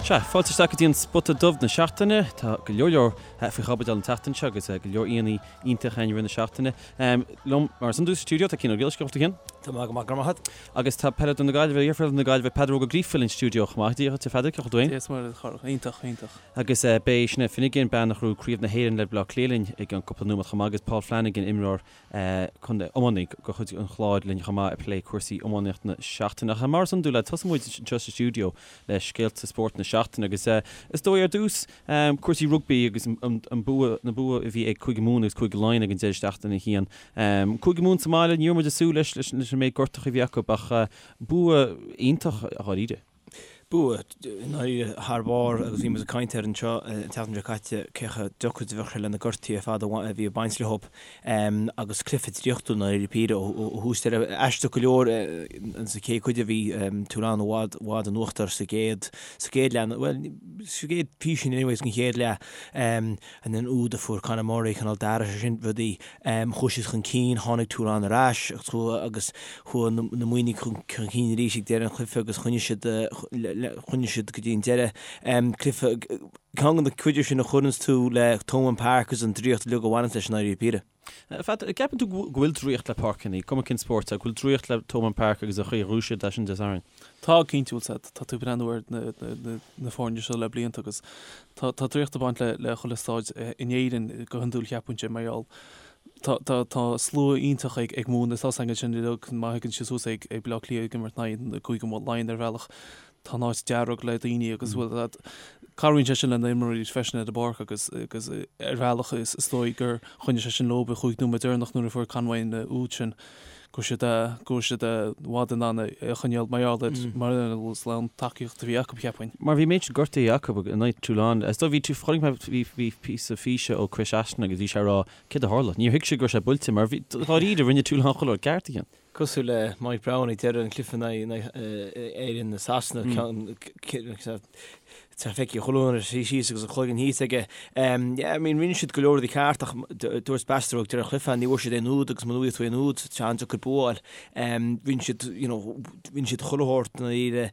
Sea, fáilte isteach go dtí an Spota Dubh na seachtaine. Tá go leor leor faoi chaibidil an tseachtain seo agus go leor aíonna iontach againn i rith na seachtaine. Liom mar is iondúil sa stiúideo tá Cian Ó Griallais, cén chaoi a bhfuil tú a Chian? Tá mé go maith, go raibh maith agat. Agus tá peileadóir na Gaillimhe, iarpheileadóir na Gaillimhe, Peadar Óg Ó Gríofa linn sa stiúideo chomh maith. Dia dhuit a Pheadair, cén chaoi a bhfuil tú féin? Dia is Muire duit a Chárthach, iontach, iontach. Agus beidh Sinéad Finnegan, bean a ghnóthaigh Craobh na hÉireann le Baile Átha Cliath linn i gceann cúpla nóiméad chomh maith agus Paul Flanagan, imreoir contae iománaí de chuid an Chláir linn chomh maith ag plé cúrsaí iománaíocht na seachtaine. Ach mar is iondúil, tosóidh muid anseo sa stiúideo le scéalta spóirt na seachtaine agus is dóigh ar dtús cúrsaí rugbaí agus an bua, na bua a bhí ag Cúige Mumhan agus Cúige Laighean ag an deireadh seachtaine a Chian. Cúige Mumhan sa mbaile, ní raibh muid ag súil leis leis an méid gortacha a bhí acu ach bua iontach dháiríre. Bua i ndáiríre thar barr agus bhí muid ag caint air anseo an tseachtain seo caite cé chomh deacair is a bheadh sé le na gortuithe ar fad a bhí ag baint leo agus cluiche draíochtúil i ndáiríre píre ó thús deireadh. Aisteach go leor sa chéad chuid a bhí Toulon i bhfad bhfad in uachtar sa gcéad sa gcéad leath bhuel sa gcéad písín anyways den chéad leath. And an úd a fuair Conor Murray, cineál d'athraigh sé sin rudaí. Chuaigh siad chun cinn, tháinig Toulon ar ais agus chuaigh na Muimhnigh chun cinn arís ag deireadh an chluiche agus choinnigh siad, choinnigh siad go dtí an deireadh. Cluiche, ceann de na cuid sin a chuireanns tú le Thomond Park agus an draíocht uilig a bhaineanns leis i ndáiríre píre. A Pheadair, an gceapann tú go bhfuil draíocht le páirceanna, cuma cén spórt é, go bhfuil draíocht le Thomond Park agus an chaoi a ghnóthaigh siad é sin Dé Sathairn? Tá, cinnte, bhfuil 's tá tú ag breathnú ar na foirne seo le blianta agus tá draíocht ag baint le chuile staid in Éirinn go hiondúil cheapfainnse mar gheall tá tá slua iontach ag ag Mumhain is tá 's againn sin uilig má thagann siad suas ag ag Baile Átha Cliath ag imirt in aghaidh na Cúige Laighean ar bhealach tá an áit dearg le daoine agus bhfuil that cabhraíonn sé sin le na imreoirí freisin ar an bpáirc agus agus ar bhealach is is dóigh gur choinnigh sé sin leo an chúig nóiméad deireanach nuair a fuair Conway an úd sin go raibh siad go raibh siad i bhfad in ann é a choinneáil mar gheall ar mar gheall ar an tacaíocht a bhí acu cheapfainn. Mar bhí méid sin gortaithe acu in aghaidh Toulon. Is dóigh bhí tú chonaic mé bhí bhí píosa físe ó Chris Ashton agus bhí sé ag rá céard a tharla. Níor thuig sé go raibh sé buailte mar bhí dáiríre rinne Toulon chuile rud ceart a Chian. Cosúil le Mike Brown ag deireadh an chluiche in aghaidh Éirinn i Sasana, tá feicthe chuile dhuine suí síos agus a chloigeann thíos aige. Yeah, I mean, rinne siad go leor rudaí ceart ach dúirt Bastareaud ag deireadh an chluiche, ní bhfuair siad aon úd agus muna bhfaighidh tú aon úd, tá sé an-deacair bua a fháil. Rinne siad, you know, rinne siad chuile shórt i ndáiríre.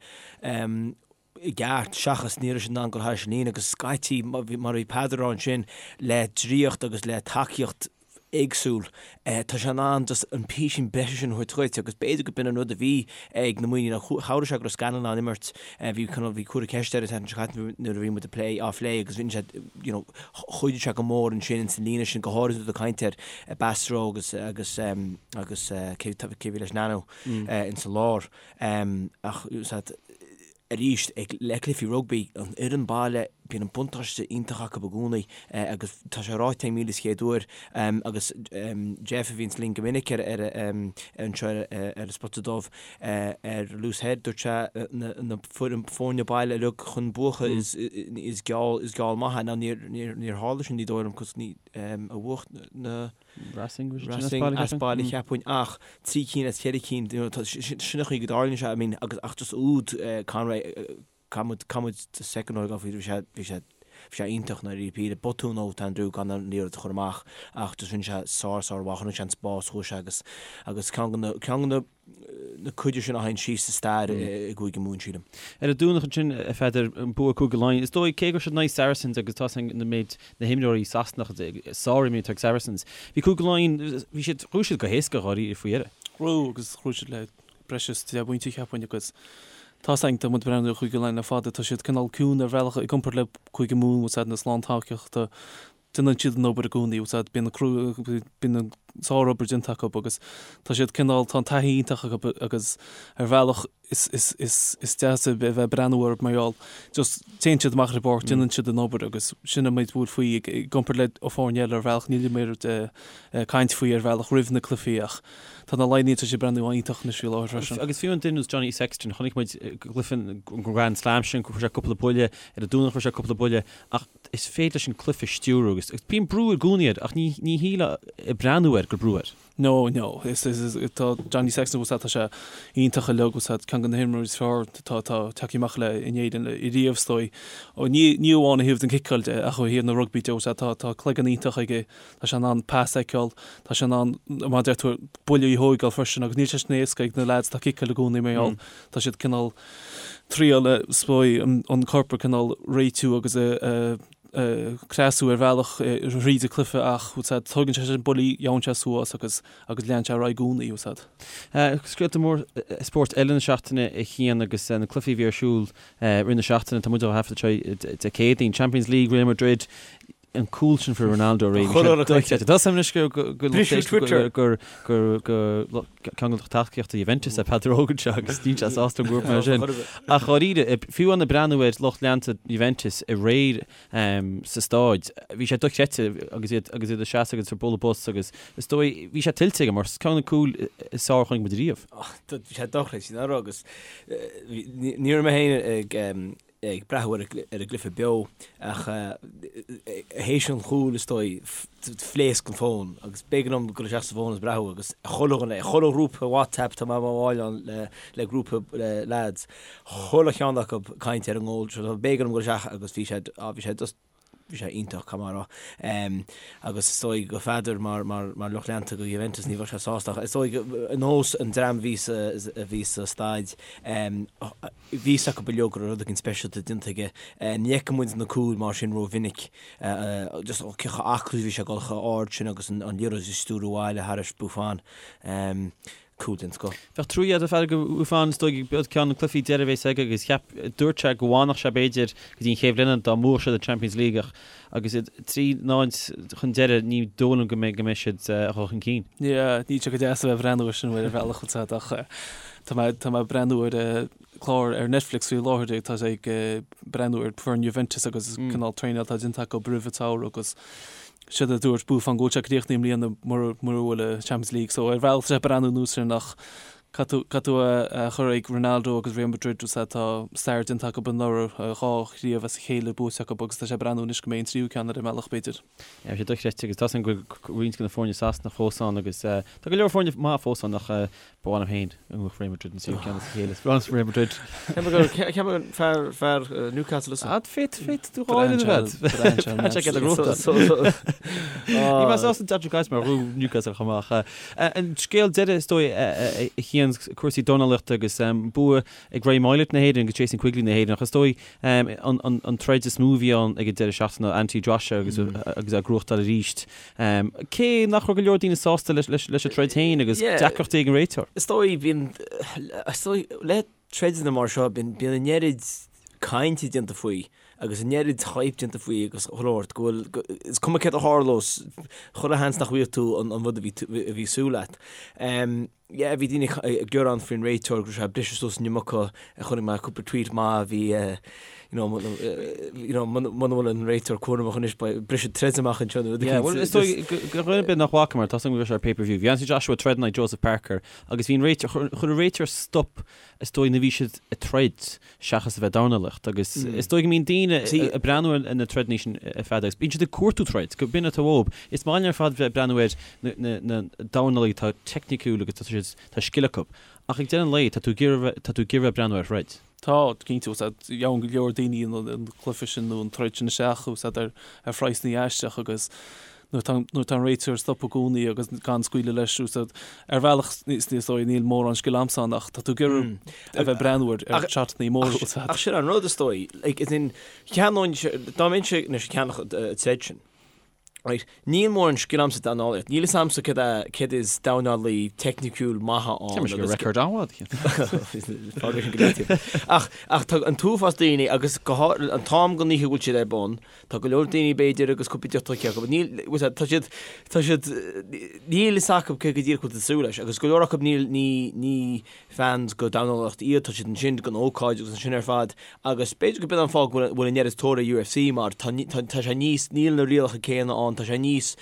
i gceart, seachas ní raibh siad in ann dul thairis an líne agus scaití, mar a bhí Peadar a rá ansin, le draíocht agus le tacaíocht éagsúil, tá sé in ann just an písín breise sin a thabhairt dhuit agus b'fhéidir go b'in an rud a bhí ag na Muimhnigh nó chabhraigh sé go raibh Scanlon in ann imirt, bhí cineál, bhí cuireadh ceist air an tseachtain seo caite nuair a bhí muid ag plé, á phlé agus rinne sé, you know, chuidigh sé go mór ansin ins an líne sin, go háirid nuair atá caint ar Bastareaud agus, agus, agus cé, cé bhí leis Nanu ins an lár. Ach, arís, ag le cluichí rugbaí, an fhoireann baile, bíonn an buntáiste iontach acu i gcónaí agus tá sé ráite ag 1001 uair agus Jeff a bhíonns linn go minic ar anseo ar an Spota Dubh ar Loosehead, dúirt sé na foirne baile uilig chun buachan is is geall is geall maith é. Now níor tharla sin ní dóigh liom cos ní a bhuaigh na Racing, Racing as baile cheapfainn ach 3 cinn as 4 cinn, you know, sin an chaoi go dtarlaíonn sé, I mean, agus ach just úd Conway, caithfidh muid, caithfidh muid second a faoi, bhí sé, bhí sé, bhí sé iontach i ndáiríre píre, botún ó Andrew gan an liathróid a chur amach ach just rinne sé sár sár mhaith, chonaic sé an spás, chuaigh sé agus, agus ceann de na, ceann de na, na cuide sin a théann síos sa stair i gCúige Mumhan, sílim. Ar an Domhnach ansin, a Pheadair, an bua Cúige Laighean. Is dóigh, cé go raibh siad in aghaidh Saracens agus tá an méid na himreoirí Sasanacha, sárimreoirí atá ag Saracens, bhí Cúige Laighean, bhí siad, ghnóthaigh siad go héasca dháiríre faoi dheireadh. Ghnóthaigh agus ghnóthaigh siad le breis is 10 bpointe cheapfainn agus tá 's againn, tá muid ag breathnú ar Chúige Laighean le fada, tá siad cineál ciúin ar bhealach i gcomparáid le Cúige Mumhan, bhfuil 's a'd na slántacaíochta, déanann siad an obair i gcónaí, bhfuil 's a'd, bíonn an bíonn an sárobair déanta acu agus tá siad cineál, tá an taithí iontach acu agus ar bhealach is, is, is, is deas a bheith ag breathnú orthu mar gheall just téann siad amach ar an bpáirc, déanann siad an obair agus sin an méid a bhfuil faoi i gcomparáid le foirne eile ar bhealach, níl muid ag caint faoi ar bhealach roimh na cluichí ach tá na Laighnigh, tá siad ag breathnú iontach anois faoi láthair freisin. Agus fiú an duine ar nós Johnny Sexton, chonaic muid cluiche an Grand Slam sin, chuir sé cúpla buille, ar an Domhnach chuir sé cúpla buille ach is féidir leis an cluiche a stiúradh agus bíonn brú i gcónaí air ach ní ní shílfeá ag breathnú air. ag cur brú air. No, no. Is, is, is, tá Johnny Sexton bhfuil tá sé iontach uilig bhfuil ceann de na himreoirí is fearr atá atá tagtha amach le in Éirinn riamh is dóigh. Ó ní ní amháin ó thaobh den ciceáil de ach ó thaobh na rugbaí de bhfuil tá tá cloigeann iontach aige, tá sé in ann pas a fheiceáil, tá sé in ann mar a deir tú buille a thóigeáil freisin agus níl sé sin éasca ag na lads atá ag ciceáil i gcónaí mar gheall tá siad cineál triail is dóigh an corp a cineál réitiú agus a a creasú ar bhealach thríd an cluiche ach tógann sé sin buillí, gheobhann sé suas agus agus leanann sé ar aghaidh i gcónaí, úsáid. Scéalta mór spóirt eile na seachtaine a Chian agus na cluichí a bhí ar siúl rith na seachtaine, tá muid á thaifead anseo Dé Céadaoin, Champions League, Real Madrid, an cúl sin fuair Ronaldo aréir. Tá sé anois go gur gur ceann de lucht tacaíochta Juventus é Peadar Óg anseo agus níl sé sásta go mar sin. Ach dháiríre, fiú amháin ag breathnú ar lucht leanta Juventus aréir sa stáid, bhí sé dochreidte agus iad agus iad ag seasamh agus ag bualadh bos agus is dóigh, bhí sé tuillte aige mar ceann de na cúil is fearr a chonaic muid riamh. Bhí sé dochreidte, nár agus ní raibh mé féin ag ag breathnú ar an gcluiche beo ach théis an chúil is dóigh phléasc an fón agus b'éigean dom dul isteach sa bhfón agus breathnú agus chuile dhuine, chuile ghrúpa WhatsApp tá mé i mo bhall ann le grúpa lads, chuile cheann acu ag caint ar an ngól seo, b'éigean dom dul isteach agus bhí sé, bhí sé just, bhí sé iontach, caithfidh mé a rá. Agus is dóigh go Pheadar mar mar lucht leanta go Juventus ní bheadh sé sásta ach is dóigh ar nós an dream a bhí sa a bhí sa staid bhí fhios acu uilig go raibh rud éigin speisialta déanta aige. Ní fheiceann muid na cúil mar sin rómhinic. Just cé chomh aclaí a bhí sé ag dul chomh ard sin agus an liathróid a stiúradh abhaile thairis Buffon. Cúl den scoth. Bheadh trua agat a Pheadair do Bhuffon is dóigh b'iod ceann de na cluichí deiridh a bheas aige agus cheap, dúirt sé go bhfanfadh sé b'fhéidir go dtí an chéad bhliain dá mbuafadh siad an Champions League ach agus iad 3-0 chun deiridh ní dóigh liom go mbeidh go mbeidh siad a dhul chun cinn. Yeah, níl sé go deas a bheith ag breathnú air sin ar bhealach úsáid ach tá mé tá mé ag breathnú ar clár ar Netflix faoi láthair tá sé ag breathnú ar foireann Juventus agus cineál traenáil atá déanta acu roimh an tsamhradh agus Séard a dúirt Buffon go bhfuil sé críochnaithe i mbliana mura bhfuil an Champions League so ar bhealach tá sé ag breathnú anuas air ach caithfidh tú caithfidh tú é a chur ag Ronaldo agus Real Madrid is tá stair déanta acu anuraidh, 2 chraobh as a chéile buaite acu agus tá sé ag breathnú anois go mbeidh an tríú ceann ar an mbealach b'fhéidir. Tá sé dochreidte agus tá a fhios agam go bhfuil roinnt de na foirne Sasanach fós ann agus tá go leor foirne maith fós ann ach Ba mhaith liom féin go mbuafadh Real Madrid an tríú ceann as a chéile. Is breá liom Real Madrid. Ceapaim gur fear fear Newcastle is. Ah, féad féad tú dhá duine bhead. Tá sé cead a grúpa. Ní mé sásta Dodger Guys mar ghrú Newcastle chomh maith. An scéal deiridh is dóigh a Chian cúrsaí dornálaíochta agus bua ag Ray Moylette na hÉireann agus Jason Quigley na hÉireann ach is dóigh an troid is mó a bhí ann ag an deireadh seachtaine ná Anthony Joshua agus agus é ag gnóthachtáil arís. Cé nach raibh go leor daoine sásta leis an troid féin agus deacrachtaí ag an réiteoir. Is dóigh, bíonn, is dóigh, le troideanna mar seo, bíonn, bíonn an oiread cainte déanta faoi agus an oiread hype déanta faoi agus chuile shórt go bhfuil, is cuma céard a tharlós, chuile sheans nach bhfaighidh tú an rud a bhí, a bhí súil leat. Yeah, bhí daoine ag gearán faoin réiteoir go raibh sé ag briseadh suas an iomarca, chonaic mé cúpla tweet maith a bhí you know, you know, muna bhfuil an réiteoir cúramach anois beidh briseadh troid amach anseo nó rud Yeah, well, is dóigh go dhuine ar bith nach bhfaca mar tá go raibh sé ar pay-per-view. Bhí Anthony Joshua ag troid in aghaidh Joseph Parker agus bhí an réiteoir, chuir an réiteoir stop is dóigh nuair a bhí siad ag troid seachas a bheith ag dornálaíocht agus is dóigh go mbíonn daoine ag breathnú ar na troideanna sin ar fad agus bíonn siad ag cuartú troid, go b'in atá uathu. Is maith linn ar fad bheith ag breathnú ar na dornálaithe atá teicniciúil agus tá siad, tá scil acu. Ach ag deireadh an lae, tá tú ag iarraidh, tá tú ag iarraidh bheith ag breathnú ar throid. Tá, cinnte, gheobhann go leor daoine an cluiche sin nó an troid sin isteach ar phraghsanna aisteach agus nuair atá nuair atá an réiteoir ag stopadh i gcónaí agus gan scaoileadh leis úsáid ar bhealach is dóigh níl mórán scil agamsa ann ach tá tú ag iarraidh a bheith ag breathnú ar ar shotanna móra úsáid. Ach sin an rud is dóigh like as in cheannóinn dá mbeinnse anois ag ceannach an troid sin right níl mórán scil agamsa dornálaíocht níl fhios agamsa céard é céard is dornálaí teicniciúil maith ann Tá mise go record an-mhaith Fág sin go leataobh. Ach ach tá an t-uafás daoine agus go háirithe an t-am den oíche a bhfuil siad ar bun Tá go leor daoine b'fhéidir agus cúpla deoch tógtha acu, níl, tá siad, tá siad, níl fhios acu cé go díreach bhfuil siad ag súil leis agus go leor acu níl, ní, ní fans go dornálaíocht iad, tá siad ansin don ócáid agus ansin ar fad agus b'fhéidir go b'in an fáth go bhfuil, bhfuil an oiread tóir ar UFC mar tá, tá, tá sé níos, níl na rialacha céanna ann, tá sé níos,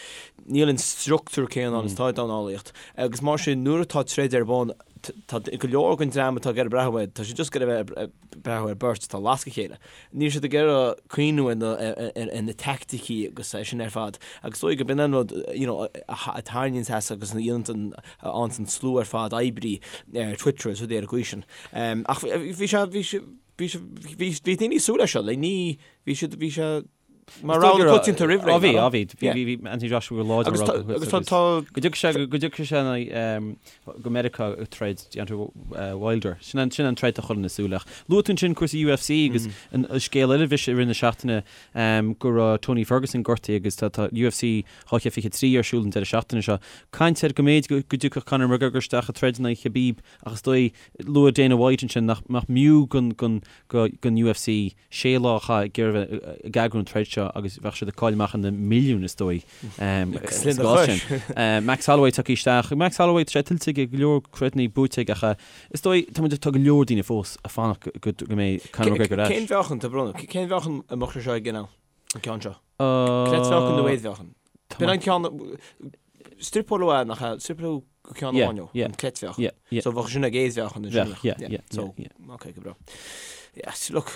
níl an structúr céanna ann is atá i dornálaíocht agus mar sin nuair atá troid ar bun. Tá go leor den dream atá ag iarraidh breathnú air, tá siad just ag iarraidh bheith ag breathnú ar beirt atá ag lascadh a chéile. Níl siad ag iarraidh cuimhniú ar na teaicticí agus é sin ar fad. Agus is dóigh gurb in an rud you know a tharraingíonn as agus a dhéanann a fhaigheann an slua ar fad oibrí ar Twitter agus rudaí ar an gcaoi sin. Ach bhí sé, bhí sé, bhí sé, bhí bhí daoine ag súil leis seo, like ní, bhí siad, bhí sé mar rogha na coitianta roimh ré. Á bhí, á bhí, bhí, bhí Anthony Joshua go láidir Agus tá, agus tá, tá. Go dtiocfaidh sé, go dtiocfaidh sé in aghaidh, go Meiriceá ag troid Deontay Wilder. Sin an, sin an troid atá chuile dhuine ag súil leis. Luaigh tú ansin cúrsaí UFC agus an scéal eile a bhí i rith na seachtaine go raibh Tony Ferguson gortaithe agus tá, tá UFC 223 ar siúl an deireadh seachtaine seo. Caint air go mb'fhéidir go dtiocfadh Conor McGregor isteach ag troid in aghaidh Khabib ach is dóigh, luaigh Dana White ansin nach mb'fhiú don UFC sé lá a chaitheamh ag iarraidh bheith ag eagrú an troid seo agus bheadh siad ag cailleadh amach ar na milliúin is dóigh sa gcás sin. Max Holloway tagtha isteach. Max Holloway tá sé tuillte aige go leor troideanna buaite aige ach is dóigh tá muid tá go leor daoine fós ag fanacht go mbeidh Conor McGregor ar ais. Cén mheáchan, tá brón orm, cén mheáchan a mbeadh sé seo ag an An ceann seo. Creidmheáchan nó éadmheáchan? B'in an ceann, struipeáladh é nach ea? Struipeáladh go ceann amháin ó, an creidmheáchan. So bheadh sin ag éadmheáchan ansin. Bheadh, yeah. So, ok, go breá. Yeah, look,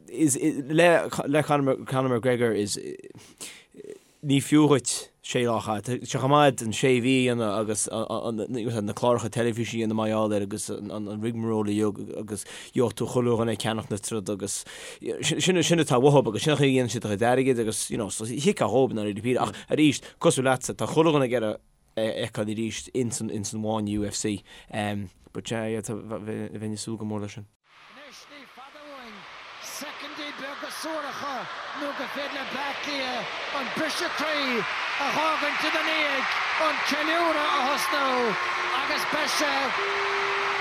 is, le, le Conor, Conor McGregor is, Ní fiú dhuit sé lá a chaitheamh. Tá sé chomh maith an sé mhí a dhéanamh agus na cláracha teilifíse a dhéanamh mar gheall air agus an rigmarole a dhéanamh agus gheobhaidh tú chuile dhuine ag ceannach na troda agus sin sin atá uathu agus sin an chaoi a dhéanann siad a gcuid airgid agus you know so thiocfadh dhóibh i ndáiríre píre ach arís cosúil leatsa tá chuile dhuine ag iarraidh é a fheiceáil arís ins an ins an bhfáinne UFC but yeah yeah tá bheinn ag súil go mór leis sin. Anois ní fada uainn soicindí beaga suaracha nó gur féidir le Bleá Cliath an briseadh croí a dh'fhágaint ina ndiaidh, an ceiliúradh a thosnú agus beidh sé,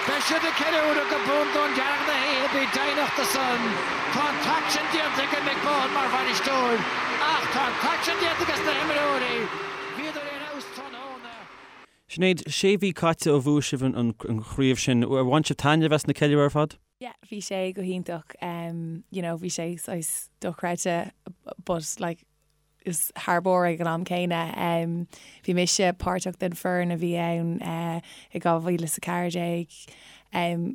beidh siad ag ceiliúradh go bundún dearg na hoíche, bí deimhneach de san. Tá an t-aicsean déanta ag Mick Bohan mar bhainisteoir ach tá an t-aicsean déanta ages na himreoirí, bhíodar ar fheabhas tráthnóna. Sinéad, sé mhí caite ó bhuaigh sibh an chraobh sin. Ar bhain sibh taitneamh as na ceiliúradh ar fad? Yeah, bhí sé go hiontach. You know, bhí sé saghas dochreidte but like is thar barr ag an am céanna. Bhí mise páirteach den foireann a bhí ann i 2014.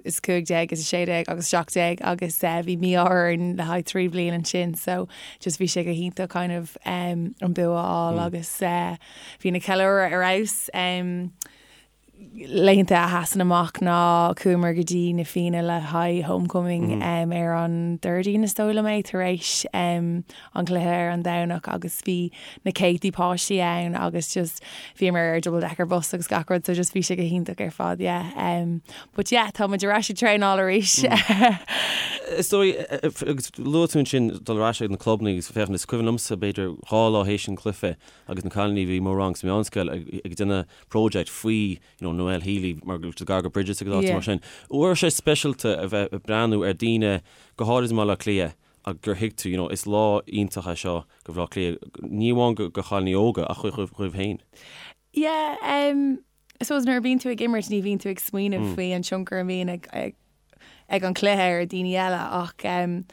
is 15 is 16 agus 17 agus bhí mí-ádh orainn le haghaidh 3 bliain ansin so just bhí sé go hiontach kind of an bua a fháil agus bhí na ceiliúradh ar fheabhas. Laethanta a sheasann amach ná chuamar go dtí na Fianna le haghaidh homecoming ar an Déardaoin is dóigh liom é tar éis an cluiche ar an Domhnach agus bhí na céadtaí páistí ann agus just bhíomar ar double decker bus agus gach rud so just bhí sé go hiontach ar fad yeah um but yeah tá muid ar ais ag traenáil arís. Is dóigh agus luaigh tú ansin dul ar ais ag na clubanna agus féachaint is cuimhin liomsa b'fhéidir dhá lá théis an cluiche agus na cailíní a bhí i mo rang sa meánscoil ag déanamh project faoi you know Noelle Healy mar go raibh gar go Bridges agus áiteanna mar sin. An raibh sé speisialta a bheith ag breathnú ar daoine go háirid i mBaile Átha Cliath ach gur thuig tú, you know, is lá iontach é seo go Bhaile Átha Cliath, ní amháin go chailíní óga ach dhaoibh féin. Yeah, um, I suppose nuair a bhíonn tú ag imirt ní bhíonn tú ag smaoineamh faoi an tionchar a bhíonn ag, ag, ag an cluiche ar daoine eile ach um,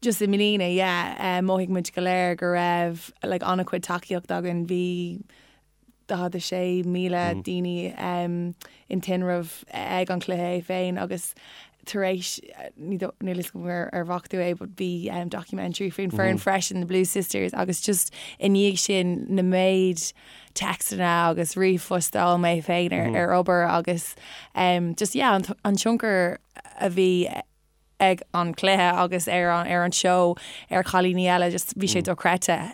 just i mbliana, yeah, um, mhothaigh muid go léir go raibh like, an-chuid tacaíocht againn, bhí 46,000 daoine in tinreamh ag an chluiche é féin agus tar éis, níl a fhios agam ar bhfaca tú é but bhí documentary faoin foireann freisin, The Blue Sisters agus just i ndiaidh sin na méid téacsanna agus ríomhphost a fháil mé féin ar obair agus just yeah an tionchar a bhí ag an chluiche agus ar an seó ar chailíní eile just bhí sé dochreidte.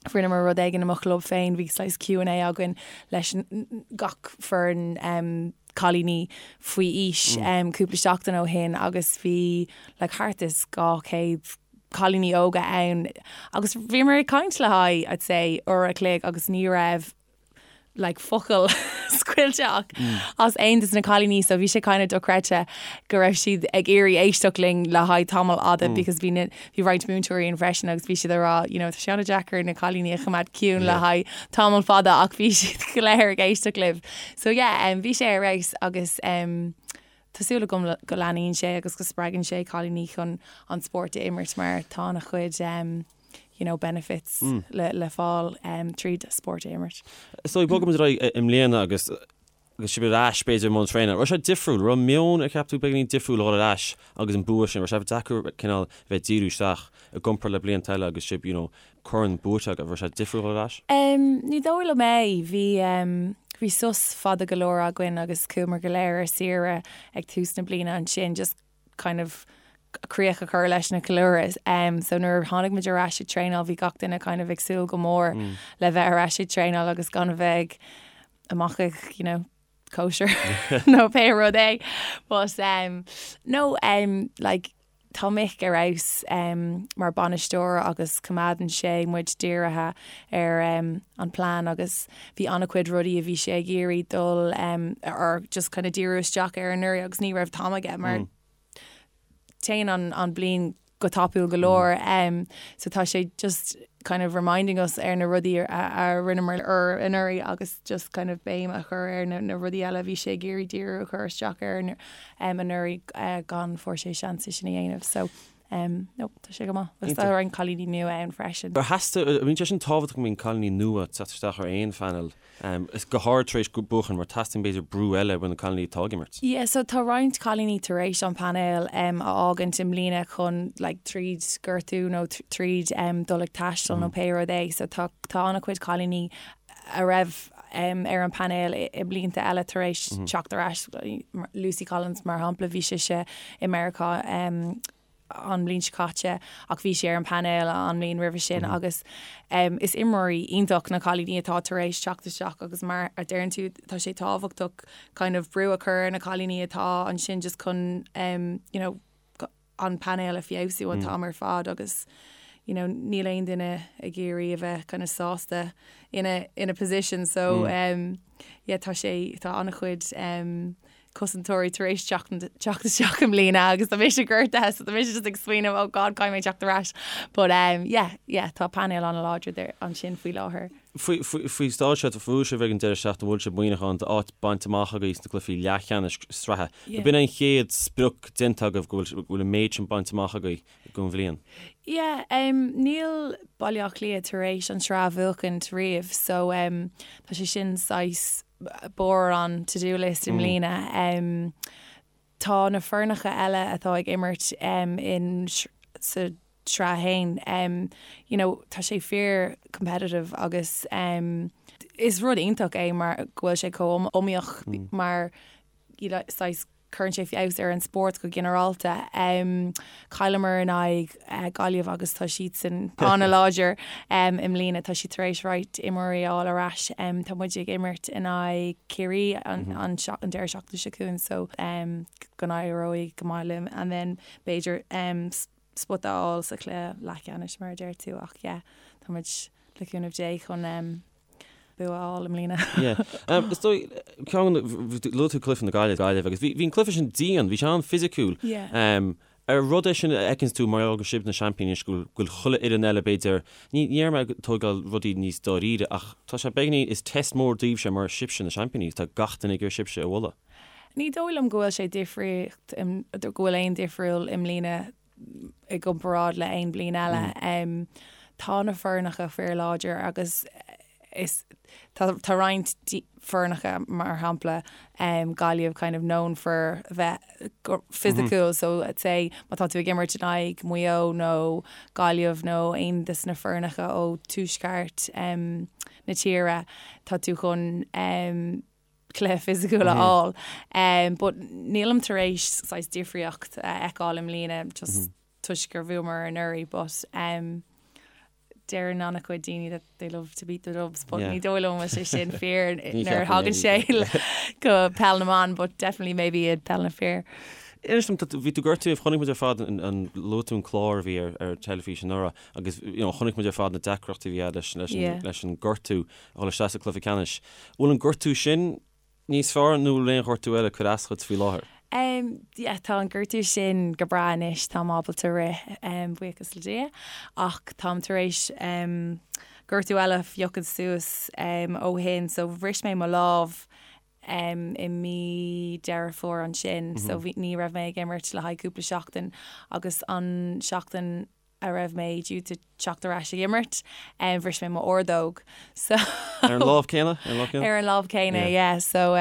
Rinneamar rud éigin i mo chlub féin, bhí saghas Q and A againn leis gach foireann cailíní faoi aois cúpla seachtain ó shin agus bhí like thart is 200 cailíní óga ann agus bhíomar ag caint le haghaidh I'd say uair a chloig agus ní raibh like focal scaoilte ach as aon de na cailíní so bhí sé kind of dochreidte go raibh siad ag iarraidh éisteacht linn le haghaidh tamall fhada because bhí na bhí roinnt múinteoirí ann freisin agus bhí siad ag rá you know tá sé an-deacair na cailíní a choimeád ciúin le haghaidh tamall fada ach bhí siad go léir ag éisteacht libh. So yeah um, bhí sé ar fheabhas agus um, Tá súil agam go leanaíonn sé agus go spreagann sé cailíní chun an spórt a imirt mar tá an-chuid um, you know, benefits le, le fáil um, tríd spórt a imirt. So bogfaimid ar aghaidh i mbliana agus. Agus sibh ar ais, b'fhéidir, i mbun traenála. Raibh sé difriúil? Raibh meon, ar cheap tú, beagáinín difriúil a dhul ar ais agus an bua sin? Raibh sé deacair cineál a bheith ag díriú isteach i gcomparáid le blianta eile agus sibh, you know, corn buaite agaibh? Raibh sé difriúil a dhul ar ais? Ní dóigh liom é. Bhí, bhí sos fada go leor againn agus chuamar go léir ar saoire ag tús na bliana ansin just kind of críoch a chur leis na ceiliúradh. So nuair a tháinig muid ar ais ag traenáil bhí gach duine kind of ag súil go mór le bheith ar ais ag traenáil agus gan a bheith ag amach ag, you know, cóisir nó pé rud é. But um, no, um, like, tá Mick ar fheabhas um, mar bainisteoir agus coimeádann sé muid dírithe ar um, an plean agus bhí an-chuid rudaí a bhí sé ag iarraidh dul um, or just kind of díriú isteach ar anuraidh agus ní raibh t-am aige mar mm. Téann an bliain go tapúil go leor so tá sé just kind of reminding us ar na rudaí a rinneamar anuraidh agus just kind of béim a chur ar na rudaí eile a bhí sé ag iarraidh díriú a chur isteach ar anuraidh gan fuair sé seans é sin a dhéanamh so no tá sé go maith agus tá roinnt cailíní nua ann freisin. Ar theastaigh, bíonn sé sin tábhachtach go mbíonn cailíní nua ag teacht isteach ar aon phainéal Is go háirid tar éis buachan mar teastaíonn b'fhéidir brú eile ó na cailíní atá ag imirt. Yeah, so tá roinnt cailíní tar éis an painéal a fhágaint i mbliana chun like tríd gortú nó tríd dul ag taisteal nó pé rud é. So tá tá an-chuid cailíní a raibh ar an painéal i blianta eile tar éis teacht ar ais. Lucy Collins mar shampla, bhí sise i Meiriceá an mbliain seo caite ach bhí sí ar an painéal an mbliain roimhe sin agus is imreoirí iontach na cailíní atá tar éis teacht isteach agus mar a deireann tú tá sé tábhachtach kind of brú a chur ar na cailíní atá ansin just chun you know an painéal a feabhsú an t-am ar fad agus you know níl aon duine ag iarraidh a bheith kind of sásta ina ina position so yeah tá sé tá an-chuid cosantóirí tar éis teacht isteach i mbliana agus tá mise gortaithe so tá mise just ag smaoineamh oh God caithfidh mé teacht ar ais but um, yeah, yeah, tá painéal an-láidir ansin faoi láthair. Faoi staid seo, bhuaigh sibh ag an deireadh seachtaine, bhfuil sibh muineachán d'áit bainte amach agaibh sna cluichí leathcheannais sraithe. Yeah. B'in an chéad sprioc déanta agaibh go bhfuil an méid sin bainte amach agaibh don bhliain. Yeah, um, níl Baile Átha Cliath tar éis an tsraith a bhuachaint riamh so um, tá sé sin saghas barr an to do list i mbliana. Tá na foirneacha eile atá ag imirt in sa tsraith féin, you know, tá sé fíor competitive agus is rud iontach é mar go bhfuil sé chomh iomaíoch mar you know, saghas Cuireann sé feabhas ar an spórt go ginearálta. Chailleamar in aghaidh Gaillimh agus tá siadsan an-láidir i mbliana. Tá siad tar éis roinnt imreoirí a fháil ar ais. Tá muid ag imirt in aghaidh Ciarraí an deireadh seachtaine seo chugainn so go n-éireoidh go maith linn and then b'fhéidir spota a fháil sa chluiche leathcheannais mar a deir tú ach yeah tá muid le cúnamh Dé chun bua a fháil i mbliana. Yeah. Is dóigh, ceann, luaigh tú cluiche na Gaillimhe, Gaillimh agus bhí, bhí an cluiche sin dian, bhí sé an-fhisiciúil. Yeah. Ar rud é sin a fheiceanns tú mar gheall gur sibh na seaimpíní anois go bhfuil, go bhfuil chuile fhoireann eile b'fhéidir, ní, ní déarfaidh mé ag tógáil rudaí níos dáiríre ach tá sé beagáinín, is test mór daoibhse mar sibhse na seaimpíní, tá gach duine ag iarraidh sibhse a bhualadh. Ní dóigh liom go bhfuil sé difríocht, go bhfuil aon difriúil i mbliana i gcomparáid le aon bliain eile. Tá na foirneacha fíorláidir agus is tá tá roinnt foirneacha mar shampla Gaillimh kind of known for bheith fisiciúil so let's say má tá tú ag imirt in aghaidh Maigh Eo nó Gaillimh nó aon de na foirneacha ó tuaisceart na tíre tá tú chun cluiche fisiciúil a fháil. But nílim tar éis saghas difríocht a fheiceáil i mbliana just toisc gur bhuamar anuraidh but deireann an-chuid daoine that they love to beat the Dubs but ní dóigh liom sé sin fíor nuair a thagann sé go peil na mban but definitely maybe i peil na fir. Inis dom, bhí tú gortaithe, chonaic muid ar fad an luaigh tú an clár a bhí ar ar teilifís anuraidh agus you know chonaic muid ar fad na deacrachtaí a bhí agat leis leis an leis an gortú a dhul isteach sa cluiche ceannais. Bhfuil an gortú sin níos fearr nó bhfuil aon ghortú eile ag cur as dhuit faoi láthair? Um, yeah, tá an gortú sin go breá anois, táim ábalta rith, um, buíochas le Dia, ach táim tar éis um, gortú eile a phiocadh suas um, ó shin, so bhris mé mo lámh um, i mí Deireadh Fómhair ansin, so bhí, ní raibh mé ag imirt le haghaidh cúpla seachtain agus an seachtain. a raibh mé due to teacht ar ais ag imirt, bhris mé m'ordóg. So Ar an lámh céanna? Ar an lámh céanna? Ar an lámh céanna, yeah. So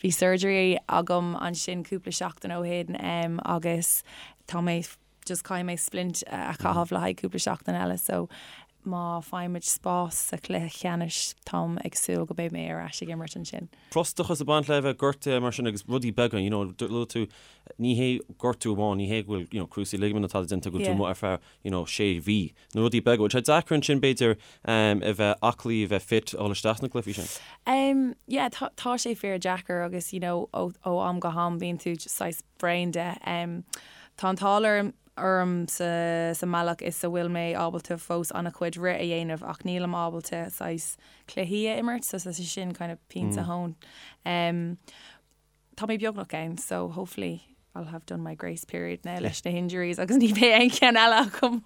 bhí surgery agam ansin cúpla seachtain ó shin agus tá mé just caithfidh mé splint a chaitheamh le haghaidh cúpla seachtain eile so má faighimid spás sa chluiche ceannais táim ag súil go mbeidh mé ar ais ag imirt ansin. Frustrachas ag baint le bheith gortaithe mar sin agus rudaí beaga, you know, luaigh tú, ní hé gortú amháin, ní hé go bhfuil, you know, cruciate ligament atá déanta go bhfuil tú amuigh ar feadh, you know, sé mhí. Na rudaí beaga, bhfuil sé deacair ansin b'fhéidir a bheith aclaí, a bheith fit, a dhul isteach sna cluichí sin? Um, yeah, tá, tá sé fíor deacair agus, you know, ó, ó am go ham bíonn tú saghas bréan de. Tá an t-ádh orm orm sa sa mbealach is a bhfuil mé ábalta fós an-chuid rith a dhéanamh ach nílim ábalta saghas cluichí a imirt so tá sé sin kind of pinse thóin. Tá mé beagnach ann so hopefully I'll have done my grace period now leis na hinjuries agus ní bheidh aon cheann eile agam.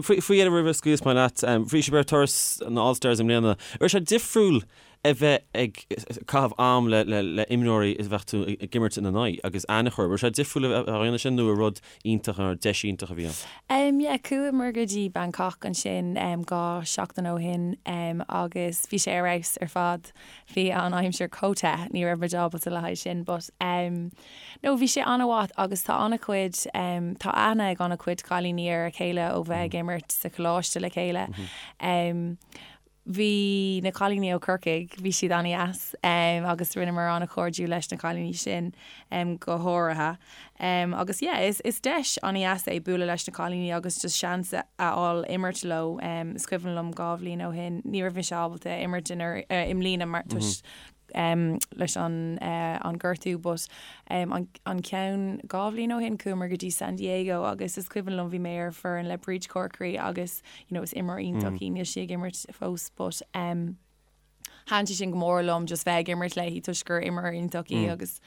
Faoi dheireadh roimh a scaoilfeas mé leat, bhí sibh ar turas na All Stars i mbliana. Raibh sé difriúil a bheith ag caitheamh am le imreoirí a bheadh tú ag imirt ina n-aghaidh agus aithne a chur. Raibh sé difriúil a bheith á dhéanamh sin nó ar rud iontach nó deis iontach a bhí ann? Yeah, chuamar go dtí Bangkok ansin 2 seachtain ó shin agus bhí sé ar fheabhas ar fad. Bhí an aimsir chomh te, ní raibh muid ábalta le haghaidh sin but no bhí sé an-mhaith agus tá an-chuid, tá aithne ag an-chuid cailíní ar a chéile ó bheith ag imirt sa choláiste le chéile. Bhí na cailíní ó Corcaigh, bhí siad an-dheas agus rinneamar an-chairdiúil leis na cailíní sin go háirithe. Agus yeah, is is deis an-dheas é bualadh leis na cailíní agus just seans a fháil imirt leo. Is cuimhin liom 2 bhliain ó shin, ní raibh mise ábalta imirt i mbliana mar toisc leis an an gortú but an an ceann 2 bhliain ó shin chuamar go dtí San Diego agus is cuimhin liom bhí mé ar foireann le Bríd Corkery agus you know is imreoir iontach í níl sí ag imirt fós but thaitin sé sin go mór liom just bheith ag imirt léi toisc gur imreoir iontach í agus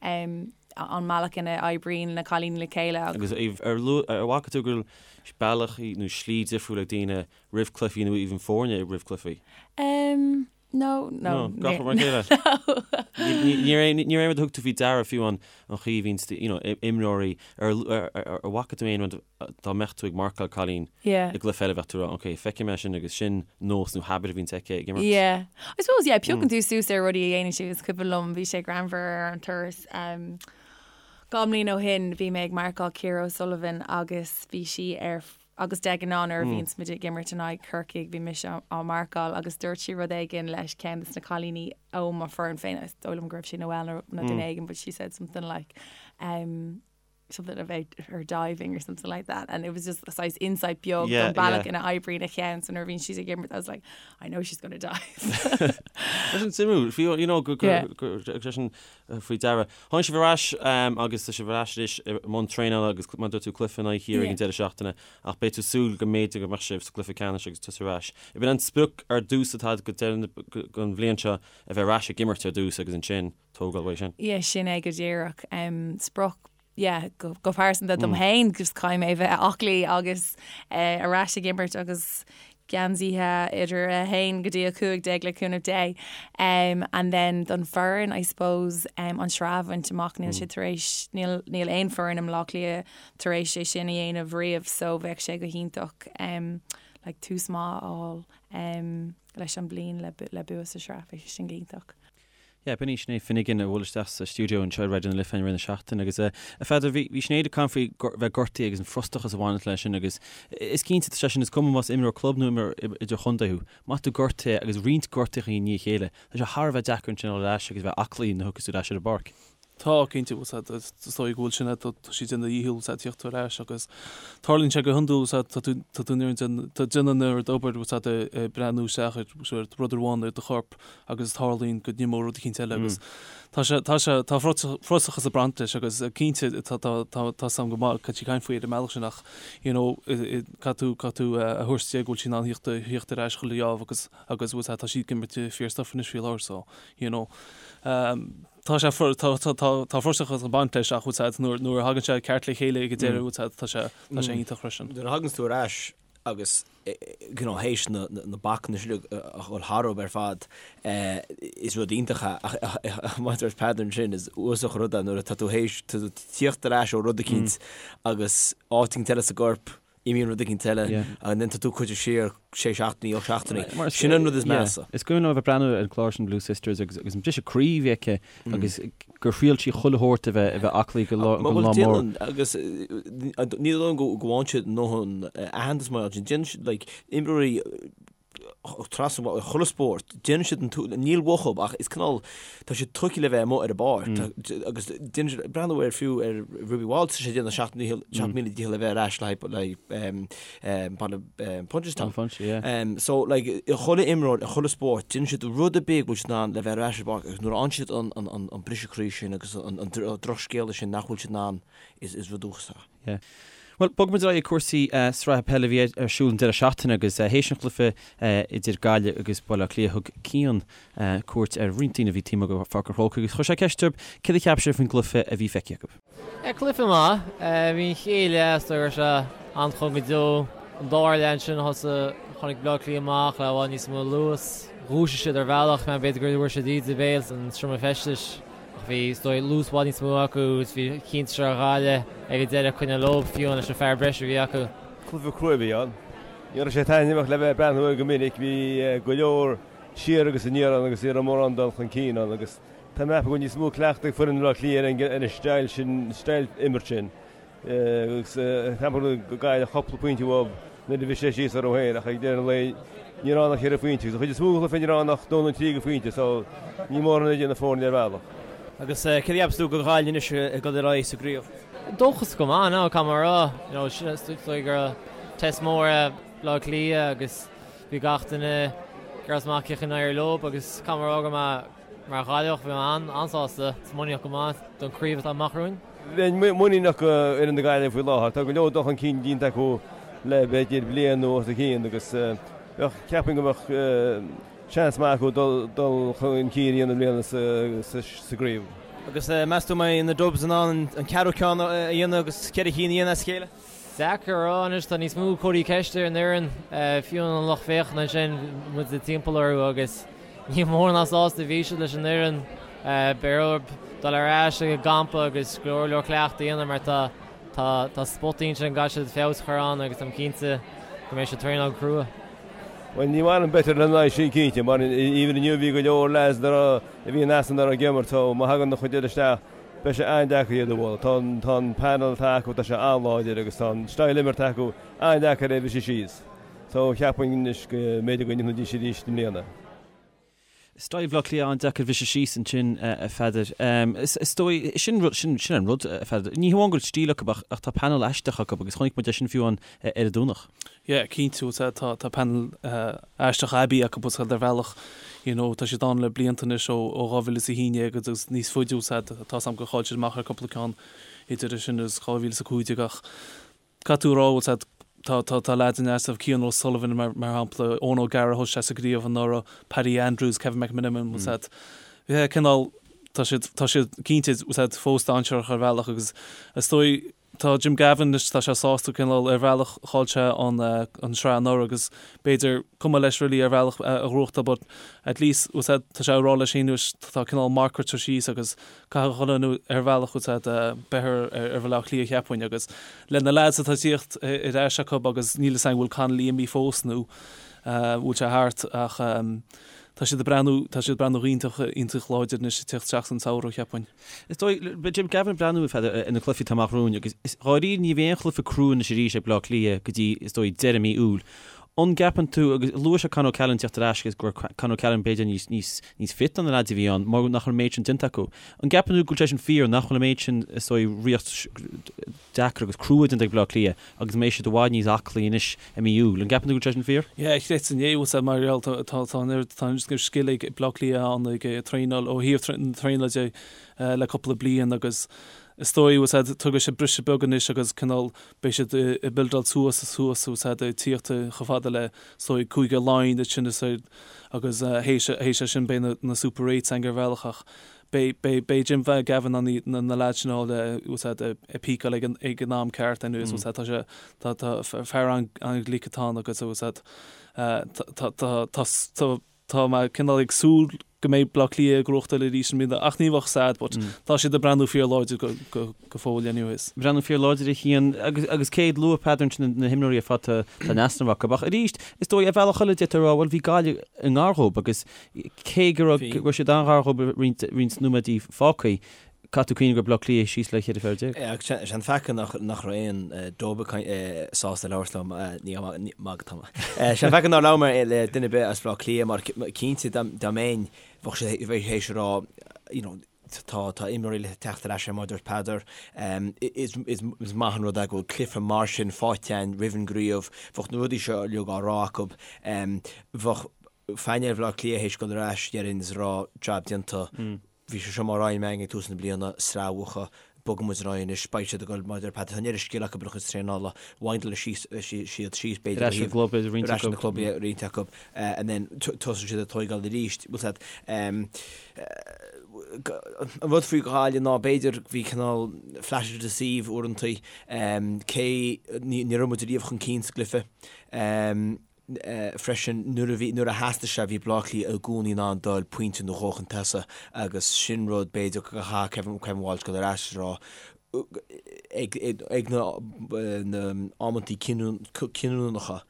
an mbealach ina oibríonn na cailíní le chéile agus. Agus ar ar bhfaca tú go bhfuil bealach nó slí difriúil ag daoine roimh cluichí nó even foirne roimh cluichí? Um, No, no. No, gach rud mar a chéile. Ní raibh aon rud a thug tú faoi deara fiú an chaoi a bhíonn you know, imreoirí ar ar bhfaca tú aon rud dá mbeadh tú ag marcáil cailín i gcluiche eile bheadh tú ag rá ok, feicfidh mé sin agus sin nós nó habit a bhíonns aici ag imirt. Yeah. I suppose, yeah, piocann tú suas ar rudaí a dhéanann siad. Is cuimhin liom, bhí sé greannmhar ar an turas 2 mbliain ó shin, bhí mé ag marcáil Ciara O'Sullivan agus bhí sí ar Agus de ghnáth nuair a bhíonns muid ag imirt in aghaidh Corcaigh bhí mise á marcáil agus dúirt sí rud éigin leis ceann de na cailíní ó mo foireann féin, is dóigh liom go raibh sé Noelle nó duine éigin but she said something like um, something about her diving or something like that and it was just a saghas insight beag don bealach ina oibríonn a cheann so nuair a bhíonn sí ag imirt I was like I know she's gonna dive. Tá sin suimiúil, fiú you know go go go go sin faoi deara. Tháinig sibh ar ais agus tá sibh ar ais anois i mbun traenála agus mar a dúirt tú cluiche in aghaidh Chiarraí ag an deireadh seachtaine ach beidh tú ag súil go mb'fhéidir go mbeadh sibh sa gcluiche ceannais agus tusa ar ais. Ab in an sprioc ar dtús atá agat go deireadh an bhliain seo a bheith ar ais ag imirt ar dtús agus ansin tógáil uaidh sin? Yeah, sin é go díreach. Sprioc yeah, go pearsanta dom féin, just caithfidh mé bheith aclaí agus ar ais ag imirt agus geansaithe idir 1 go dtí 15 le cúnamh Dé. Um, and then don foireann, I suppose, um, an sraith a bhaint amach, níl sé tar éis, níl, níl aon foireann i mBleá Cliath tar éis é sin a dhéanamh riamh, so bheadh sé go hiontach um, like, tús maith a fháil um, leis an bliain le, le bua sa sraith, bheadh sé sin go hiontach. Yeah, b'in í Sinéad Finnegan a bhuail isteach sa stiúideo anseo ar Raidió na Life i rith na seachtaine agus a Pheadair, bhí bhí Sinéad ag caint faoi bheith gortaithe agus an frustrachas a bhaineann leis sin agus is cinnte tá sé sin is cuma más imreoir club nó imreoir idirchontae thú, má tá tú gortaithe agus roinnt gortuithe i ndiaidh a chéile, tá sé thar a bheith deacair ansin a dhul ar ais agus a bheith aclaí nuair a thiocfas tú ar ais ar an bpáirc. Tá, cinnte, bhfuil a fhios agat, is dóigh go bhfuil sin, tá siad ag déanamh a dhícheall, bhfuil a fhios agat, tíocht ar ais agus tarlaíonn sé go hiondúil, bhfuil a fhios agat, tá tú, tá tú in ann, tá déanamh an oiread obair, bhfuil a fhios agat, ag breathnú isteach ar, ar rud amháin ar do chorp agus tarlaíonn go n-imeodh rud eicínt eile agus tá sé, tá sé, tá frustrachas ag baint leis agus cinnte tá, tá, tá, tá a fhios agam go maith cad tá sí ag caint faoi ar an mbealach sin ach, you know, caithfidh tú, caithfidh tú a thabhairt di go bhfuil sí in ann thíocht, thíocht ar ais chuile gheábh agus, agus bhfuil a fhios agat, tá sí ag imirt fíor-stuif anois faoi láthair so, you know, tá sé, tá, tá, tá, tá frustrachas ag baint leis ach bhfuil a fhios agat, nuair, nuair a thagann sé ceart le chéile ag an deireadh, bhfuil a fhios agat, tá sé, tá sé iontach freisin. Nuair a thaganns tú ar ais agus you know théis na, na, na bacanna sin a dhul tharab ar fad, is rud iontach é ach, ach mar a dúirt Peadar ansin, is uafásach an rud é nuair atá tú théis, tá tú tíocht ar ais ó rud eicínt agus áit eicínt eile sa gcorp. Imíonn rud éicint eile and then tá tú curtha siar sé seachtainí, 8 seachtainí. Sin an rud is measa. Is cuimhin liom a bheith ag breathnú ar an chlár sin Blue Sisters agus agus an briseadh croí a bhí aici agus gur thriail sí chuile shórt a bheith a bheith aclaí go lá go lá mór. Agus ní dóigh liom go bhfaigheann siad a ndóthain aitheantas mar sin. Déanann siad like imreoirí trasna chuile spórt, déanann siad an t-, níl uathu ach is cineál, tá siad tugtha le bheith amuigh ar an bpáirc agus déanann siad, breathnú ar fiú ar Ruby Walsh, tá sé ag déanamh 7000 dícheall le bheith ar ais le haghaidh baile Punchestown. So like chuile imreoir i chuile spórt, déanann siad rud ar bith go bhfuil siad in ann le bheith ar ais ar an bpáirc agus nuair a fhaigheann siad an briseadh croí sin agus an drochscéala sin nach bhfuil siad in ann, is rud uafásach. Yeah. Bhuel, bogfaidh muid ar aghaidh ag cúrsaí sraithe peile a bhí ar siúl an deireadh seachtaine agus théis an chluiche idir Gaillimh agus Baile Átha Cliath thug Cian cuairt ar roinnt daoine a bhí taobh amuigh de Pháirc an Chrócaigh agus chuir sé ceist orthu céard a cheap siad faoin gcluiche a bhí feicthe acu. Cluiche maith. Bhí an chéad leath is dóigh go raibh sé an-chúng go deo. An dara leath ansin thosaigh, tháinig Baile Átha Cliath amach le i bhfad níos mó luas. Dhúisigh siad ar bhealach, b'fhéidir gur bhfuair siad íde béil san seomra feistis. Ach bhí, is dóigh, luas i bhfad níos mó acu agus bhí cinnte ar Ghaillimh ag an deireadh coinneáil leo, fiú leis an fear breise a bhí acu. Cluiche crua a bhí ann. Ní raibh sé taitneamhach le bheith ag breathnú air go minic. Bhí go leor siar agus aniar ann agus ní raibh mórán dul chun cinn ann agus tá mé ag ceapadh go bhfuil níos mó cleachtaidh ag foireann Bhaile Átha Cliath ar an style sin, style imirt sin. Agus ceapaim go Gaillimh cúpla pointe uathu nuair a bhris sé síos orthu féin ach ag deireadh an lae ní raibh ann ach cheithre phointe agus an chuid is mó den chluiche ní raibh ann ach dó nó trí de phointe so ní mórán a dhéanamh na foirne ar bhealach. Agus céard a cheapas tú do Ghaillimh anois ag dul ar aghaidh sa gcraobh? Dóchasach go maith, no, caithfidh mé a rá. You know, is dóigh go raibh test mór é Baile Átha Cliath agus bhí gach duine ag iarraidh amach cén chaoi a n-éireodh leo agus caithfidh mé a rá go mbeidh Mar Ghaillimheach, bhí mé an-sásta is muiníneach go maith don chraobh atá amach romhainn. Bheinn muiníneach do fhoireann na Gaillimhe faoi láthair. Tá go leor dul chun cinn déanta acu le b'fhéidir bliain nó os a chionn agus bheadh, ceapaim go mbeadh seans maith acu dul chun cinn a dhéanamh i mbliana sa gcraobh. Agus meas tú an mbeidh na Dubs in ann an ceathrú ceann a dhéanamh agus cheithre chinn a dhéanamh as a chéile? Deacair a rá anois, tá níos mó comharthaí ceiste ar an fhoireann, fiú an lucht féachana ansin, muid timpeall orthu agus ní mór ná sásta a bhí siad leis an fhoireann. Beidh orthu dul ar ais ag an gcampa agus go leor leor cleachtadh a dhéanamh mar tá tá tá spotaí ansin go gcaithfidh siad feabhas a chur ann agus táim cinnte go mbeidh siad traenáil go crua. Bhuel ní maith liom beirt ar an aghaidh sin cinnte mar even inniu bhí go leor lads a bhí in easnamh nach raibh ag imirt so má thagann an chuid eile isteach Beidh sé an-deacair iad a bhualadh. Tá an, tá an panel atá acu, tá sé an-láidir agus tá an style imeartha acu an-deacair é a bhriseadh síos. So cheapfainn anois go mb'fhéidir go ndéanfaidís arís i mbliana. Style Bhaile Átha Cliath an-deacair a bhriseadh síos ansin, a Pheadair. Is dóigh, sin rud, sin, sin an rud, a Pheadair. Ní hamháin go bhfuil stíl acu ach, ach tá panel aisteach acu agus chonaic muid é sin fiú amháin ar an Domhnach. Yeah, cinnte, bhfuil a fhios a'd, tá panel aisteach aibí acu bhfuil a fhios a'd ar bhealach, you know, tá siad ann le blianta anois ó 2011 agus níos faide, bhfuil a fhios a'd, tá a fhios a'm gur chaill siad amach ar cúpla ceann idir sin agus 2015 ach caithfidh tú a rá, bhfuil a fhios a'd, tá, tá, tá lads in easnamh, Cian O'Sullivan mar, mar shampla, Eoin O'Gara thosaigh sé sa gcraobh anuraidh, Paddy Andrews, Kevin McMenamin, bhfuil a fhios a'd, yeah, cineál, tá siad, tá siad cinnte, bhfuil a fhios a'd, fós dainséarach ar bhealach agus is dóigh, Tá Jim Gavin anois, tá sé sásta cineál ar bhealach, chaill sé an an sraith anuraidh agus b'fhéidir cuma leis really ar bhealach a ghnóthachtáil but at least bhfuil a fhios a'd tá sé ag rá leis féin anois tá cineál marc curtha síos agus caithfidh chuile dhuine ar bhealach bhfuil a fhios a'd beith ar ar Bhaile Átha Cliath cheapfainn agus le na lads atá ag tíocht ar ais acu agus níl a fhios a'm bhfuil Connolly imithe fós nó bhfuil sé thart ach tá siad ag breathnú tá siad ag breathnú iontach iontach láidir anois ag tíocht isteach san samhradh cheapfainn. Is dóigh, beidh Jim Gavin ag breathnú ar na cluichí atá amach romhainn agus is dháiríre ní bheidh aon chluiche crua anois arís ag Baile Átha Cliath go dtí, is dóigh, deireadh mí Iúil. An gceapann tú, agus luaigh sé Con O'Callaghan teacht ar ais agus go raibh Con O'Callaghan b'fhéidir níos, níos, níos fit ná na leaids a bhí ann mar nach raibh an méid sin déanta acu. An gceapann tú go bhfuil sé sin fíor, nach bhfuil an méid sin, is dóigh, riocht deacair agus crua déanta ag Baile Átha Cliath agus go mbeidh siad i bhfad níos aclaí anois i mí Iúil. An gceapann tú go bhfuil sé sin fíor? Yeah, chreidfinn é, bhfuil a fhios a'd, mar gheall tá tá tá an oiread tá an oiread scil ag Baile Átha Cliath ann ag traenáil ó thaobh na traenála de le cúpla bliain agus is dóigh bhfuil a fhios a'd tógfaidh sé briseadh beag anois agus cineál beidh siad ag buildáil suas is suas bhfuil a fhios a'd ag tíocht chomh fada le is dóigh Cúige Laighean ansin is agus théis théis sin beidh na na Super Eights againn ar bhealach ach Beidh, beidh, beidh Jim Gavin in ann na leaids sin a fháil, bhfuil a fhios a'd, ag peakáil ag an, ag an am ceart anyways, bhfuil a fhios a'd, tá sé, tá, tá fear an-ghlic atá ann agus, bhfuil a fhios a'd, tá, tá, tá, tá, tá. Tá mé cineál ag súil go mbeidh Bleá Cliath ag gnóthachtáil arís i mbliana ach ní bheadh sad but tá siad ag breathnú fíor láidir go go fóill anyways. Breathnú fíor láidir a Chian agus agus cé luaigh Peadar ansin na himreoirí ar fad tá tá in easnamh acu ach arís is dóigh ar bhealach eile d'fhéadfá a rá bhuel bhí Gaillimh i ngar dhóibh agus cé go raibh go raibh siad an-ghar dhóibh roinnt roinnt nóiméadaí fágtha Caithfidh tú cuimhneamh go raibh Bleá Cliath síos le 14 fear. Agus sé an faic nach raibh aon dob sásta labhairt liom, ní magadh tá mé. Sé an faic nár labhair mé le duine ar bith as Bleá Cliath mar cinnte dá mbeinn bheadh sé théis a rá you know tá tá imreoirí le teacht ar ais mar a dúirt Peadar. Is is maith an rud é go bhfuil cluiche mar sin faighte againn roimh an gcraobh, bheadh na rudaí seo uilig á rá acu. Bheadh painéal Bhaile Átha Cliath théis dul ar ais déarfainn is a rá jab déanta. Bhí sé seo mar aidhm againn ag tús na bliana, sraith a bhuachan, bogfaidh muid ar aghaidh anois, beidh siad ag dul, mar a deir Pat, tá an oiread scil acu ar a gcuid traenála, windáil síos siad síos b'fhéidir Ar ais an gclub, b'fhéidir, roinnt acu. Ar ais an club, yeah, roinnt acu, and then tosóidh siad ag tóigeáil arís, bhfuil 's a'd. An rud faoi Ghaillimh ná b'fhéidir bhí cineál flatter to deceive uaireantaí, cé ní raibh muid riamh chun cinn sa gcluiche. freisin nuair a bhí, nuair a theastaigh sé, bhí Bleá Cliath i gcónaí in ann dul pointe nó dhó chun tosaigh agus sin rud b'fhéidir go gcaithfidh Kevin, Kevin Walsh dul ar ais a rá ag, ag na, na amantaí cinniúnacha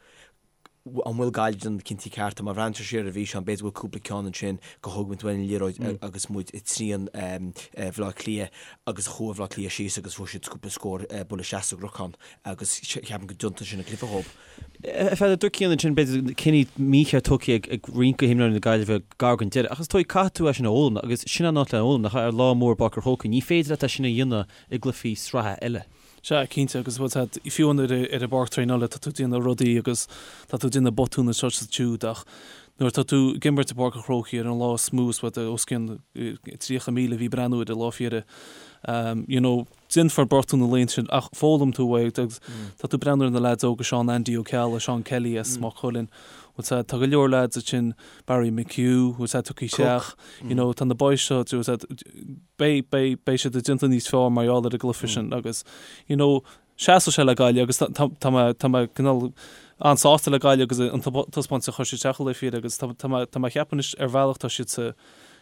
an bhfuil Gaillimh ag déanamh na cinntí cearta má bhreathnaíonn tú siar ar an bhfíseán b'fhéidir go bhfuil cúpla ceann ansin gur thóg muid uainn an liathróid agus muid i dtrian Bhleá Cliath agus chuaigh Bleá Cliath síos agus fuair siad cúpla scór buille isteach sa gcnocán agus ceapaim go dtiontaíonn sin an cluiche dhóibh. A Pheadair, dúirt Cian ansin, b'fhéidir, cinní mícheart tugtha ag roinnt de himreoirí na Gaillimhe gar don deireadh, ach is dóigh caithfidh tú é sin a fhoghlaim agus sin an áit le fhoghlaim, nach ea, ar lá mór i bPáirc an Chrócaigh, ní féidir leat é sin a dhéanamh i gcluichí sraithe eile. Sea, cinnte, agus bhfuil 's a'd, fiú ar ar an bpáirc traenála tá tú ag déanamh rudaí agus tá tú ag déanamh botún anseo is ansiúd ach nuair atá tú ag imirt i bPáirc an Chrócaigh ar an lá is mó is bhfuil os cionn 30,000 a bhí ag breathnú ar an lá féire, you know, Déanfar botún na laethanta sin ach foghlaim tú é agus tá tú ag breathnú ar na leaids óga, Seán Andy Ó Ceallaigh, Seán Kelly as Maigh Cuilinn, bhfuil 's a'd, tá go leor leaids ansin, Barry McHugh, bhfuil 's a'd, tugtha isteach, you know, tá na boys seo, bhfuil 's a'd, beidh, beidh, beidh siad ag déanamh níos fearr mar gheall ar an gcluiche sin agus, you know, seasfaidh sé le Gaillimh agus tá, tá, tá mé, tá mé cineál an-sásta le Gaillimh agus an taispeántas a chuir siad isteach an lá féire agus tá, tá mé, tá mé ag ceapadh anois ar bhealach tá siad sa,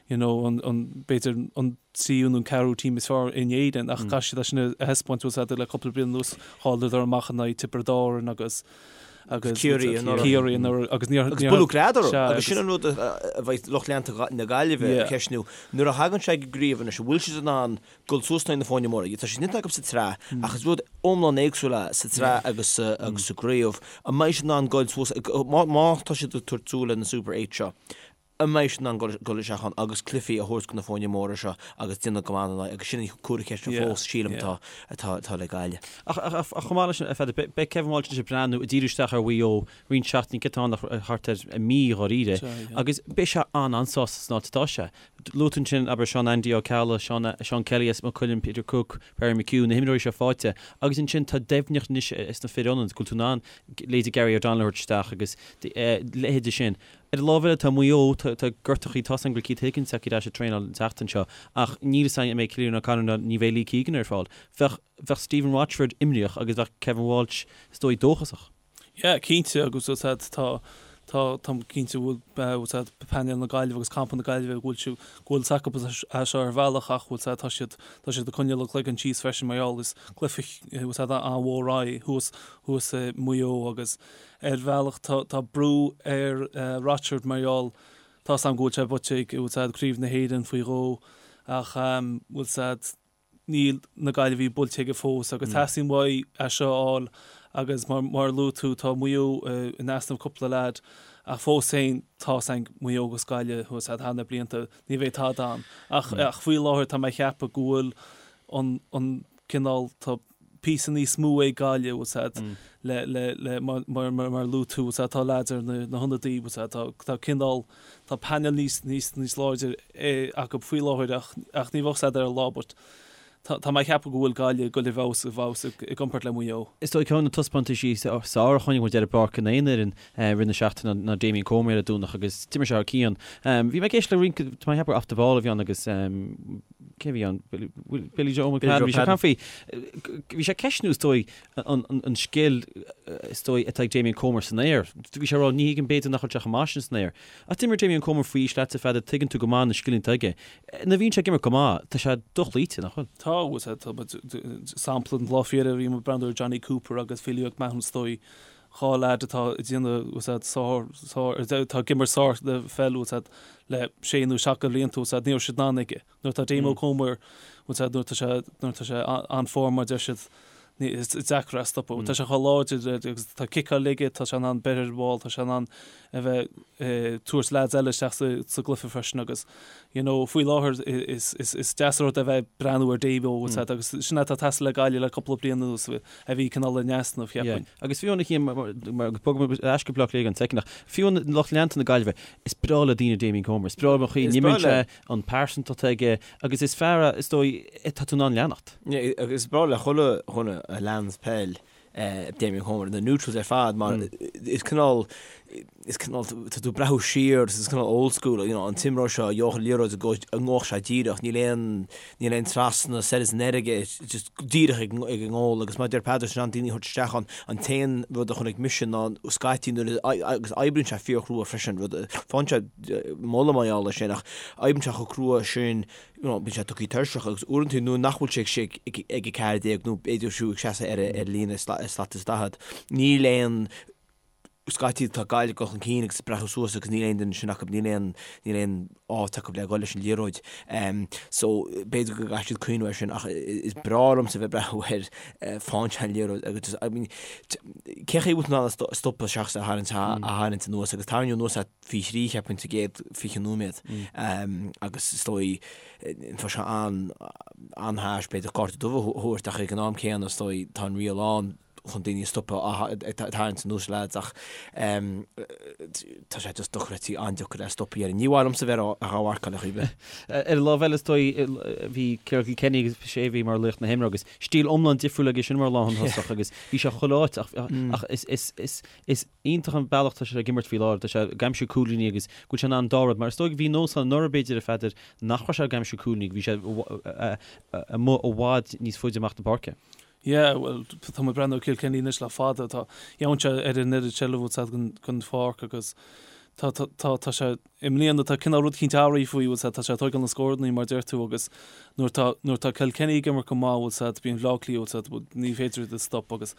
you know, an, an, b'fhéidir an tríú nó an ceathrú team is fearr in Éirinn ach caithfidh siad é sin a thaispeáint bhfuil 's a'd le cúpla bliain anuas chailleadar amach in aghaidh Tiobraid Árann agus agus Ciarraí anuraidh. Ciarraí anuraidh agus níor Agus buaileadh greadadh orthu agus sin an rud a bheidh lucht leanta na Gaillimhe ag ceistniú nuair a thagann sé ag an gcraobh anois an bhfuil siad in ann dul suas in aghaidh na foirne móra. Tá sé déanta acu sa tsraith ach is rud iomlán éagsúil é sa tsraith agus agus sa gcraobh. An mbeidh siad in ann dul suas má tá siad ag tabhairt súil ar na Super 8 seo An mbeidh siad in ann dul isteach ann agus cluichí a thabhairt do na foirne móra seo agus déanamh go maith ina n-aghaidh agus sin an comhartha ceiste fós, sílim, atá atá le Gaillimh. Ach chomh maith leis sin, a Pheadair, beidh Kevin Walsh anois ag breathnú, ag díriú isteach ar Mhaigh Eo roinnt seachtainí, céard atá ann ach thart ar mhí dháiríre, agus beidh sé an-an-sásta san áit atá sé. Luaigh tú ansin, abair, Seán Andy Ó Ceallaigh, Seán Seán Kelly as Maigh Cuilinn, Peter Cooke, Barry McHugh, na himreoirí seo faighte agus ansin tá doimhneacht anois sna fir ionaid, go bhfuil tú in ann leithéidí Gary O'Donnell a thabhairt isteach agus leithéidí sin. Ar an lámh eile, tá Maigh Eo, tá gortachaí, tá 's agam go bhfuil Keith Higgins acu ar ais ag traenáil an tseachtain seo, ach níl 'fhios againn an mbeidh Cillian O'Connor ná ní bheidh Lee Keegan ar fáil. Bheadh, bheadh Stephen Rochford imníoch agus bheadh Kevin Walsh, is dóigh, dóchasach. Yeah, cinnte, agus bhfuil 's a'd, tá, tá, táim cinnte go bhfuil, bhfuil 's a'd, painéal na Gaillimhe agus campa na Gaillimhe, go bhfuil siad, go bhfuil 's acu é seo ar bhealach ach bhfuil 's a'd, tá siad, tá siad ag coinneáil a gcloigeann síos freisin mar gheall, is cluiche, bhfuil 's a'd, an-mhór é thuas, thuas i Maigh Eo agus, Ar bhealach tá brú ar Rochford mar gheall tá 's agam go bhfuil sé buaite ag bhfuil 's a'd Craobh na hÉireann faoi dhó ach bhfuil 's a'd níl na Gaillimhigh buailte aige fós agus teastaíonn uaidh é seo a fháil agus mar mar a luaigh tú tá Maigh Eo in easnamh cúpla leaid ach fós féin tá 's a'm Maigh Eo agus Gaillimh bhfuil 's a'd thar na blianta ní bheidh tada ann ach ach faoi láthair tá mé ag ceapadh go bhfuil an an cineál tá píosa níos mó ag Gaillimh, bhfuil 's a'd, le, le, le, mar, mar, mar, mar a luaigh tú, bhfuil 's a'd, tá leaids ar na, na hionadaí, bhfuil 's a'd, tá, tá cineál, tá painéal níos, níos, níos láidir acu faoi láthair ach, ach ní bheadh 's a'd ar an lá but tá, tá mé ag ceapadh go bhfuil Gaillimh ag dul i bhfeabhas, i bhfeabhas i, i gcomparáid le Maigh Eo. Is dóigh ceann de na taispeántaisí is fearr a chonaic muid ar an bpáirc in aon fhoireann i rith na seachtaine ná Damien Comer ar an Domhnach agus d'imir sé thar cionn. Bhí mé ag éisteacht le roinnt, tá mé ag ceapadh gur Off the Ball a bhí ann agus. Cé a bhí ann? Billy Joe McFadden. Bhí sé ag caint faoi, bhí sé ag ceistniú is dóigh an scil is dóigh atá ag Damien Comer san aer. Bhí sé ag rá ní thuigim b'fhéidir nach bhfuil sé chomh maith sin san aer. Ach d'imir Damien Comer faoi aois leatsa Pheadair, tuigeann tú go maith na scileanna atá aige. Nuair a bhíonn sé ag imirt go maith, tá sé dochloíte, nach bhfuil? Tá, bhuel, sampla den lá faoi dheireadh bhí muid ag breathnú ar Jonny Cooper agus Philly McMahon is dóigh, 2 leaid atá ag déanamh, bhfuil a fhios a'd, sár, sár, atá ag imirt sár pheil, bhfuil a fhios a'd, le sé nó seacht de bhlianta, bhfuil a fhios a'd, ní raibh siad in ann aige. Nuair atá Damo Comer, bhfuil a fhios a'd, nuair atá sé, nuair atá sé an-form mar deir siad, ní, is deacair é a stopadh. Tá sé chomh láidir agus tá ciceáil aige, tá sé in ann breith ar an bhall, tá sé in ann a bheith ag tabhairt leaids eile isteach sa, sa gcluiche freisin agus, you know, faoi láthair is, is, is deas an rud é a bheith ag breathnú ar Damo, bhfuil a fhios a'd, agus sin atá ag teastáil le Gaillimh le cúpla bliain anuas. a bhí cineál in easnamh, cheapfainn. Agus fiú amháin, mar agus bogfaidh muid ar ais go Bleá Cliath don soicind ach fiú amháin lucht leanta na Gaillimhe, is breá le daoine Damien Comer, is breá leo an chaoi a n-imríonn sé, an pearsantacht atá aige agus is fear é, is dóigh, atá tú in ann leanacht. Agus is breá le chuile dhuine a leans peil Damien Comer, na neutrals ar fad mar is cineál, is cineál, tá tú ag breathnú siar is cineál old school, you know, an t-imreoir seo a gheobhadh an liathróid go ngabhfadh sé díreach, níl aon, níl aon trasna soir is anoir aige, just díreach ag ag an ngól agus mar a deir Peadar sin an daoine a thabhairt isteach ann, an t-aon rud a chonaic mise ná scaití nuair a, agus oibríonn sé fíorchrua freisin, rud, faigheann sé moladh mar gheall air sin ach oibríonn sé chomh crua sin, you know, bíonn sé tugtha tuirseach agus uaireanta nuair nach bhfuil sé ag ag 14 nó b'fhéidir fiú ag seasamh ar ar líne slat is 40, níl aon scaití tá Gaillimh ag dul chun cinn agus ag breathnú suas agus níl aon duine sin acu, níl aon, níl aon áit acu le dhul leis an liathróid. So b'fhéidir go gcaithfidh siad cuimhneamh air sin ach is breá liomsa bheith ag breathnú air faigheann sé an liathróid agus just, I mean, cén chaoi a bhfuil tú in ann é a stopadh seachas a tharraingt, a tharraingt anuas agus tarraingeadh anuas é faoi thrí cheapfainn sa gcéad 20 nóiméad agus is dóigh tá sé an, an-harsh b'fhéidir cárta dubh a thabhairt ach ag an am céanna is dóigh tá an riail ann chun daoine a stopadh ag tarraingt anuas lads ach tá sé just dochreidte, an-deacair é a stopadh dhéarfainn. Ní mhaith liomsa bheith á mharcáil ar chaoi ar bith. Ar an lámh eile is dóigh bhí Ciarán Kilkenny agus sé a bhí mar laoch na himeartha agus stíl iomlán difriúil aige sin mar lánthosach agus bhí sé chuile áit ach ach is is is is iontach an bealach tá sé ag imirt faoi láthair, tá sé ag aimsiú cúilíní agus go bhfuil sé in ann an dá rud mar is dóigh bhí nós ann anuraidh b'fhéidir a Pheadair nach raibh sé ag aimsiú cúilíní, bhí sé amuigh i bhfad níos faide amach na páirce. Yeah, bhuel, tá mé ag breathnú ar Kilkenny anois le fada, tá, gheobhann sé ar an oiread seilbh bhfuil a fhios a'd den, den pháirc agus tá, tá, tá, tá sé, i mbliana tá cineál rud eicínt athraithe faoi, bhfuil a fhios a'd, tá sé ag tóigeáil na scórannaí mar a deir tú agus nuair tá, nuair tá Kilkenny ag imirt go maith, bhfuil a fhios a'd, bíonn Bleá Cliath, bhfuil a fhios a'd, ní féidir iad a stop agus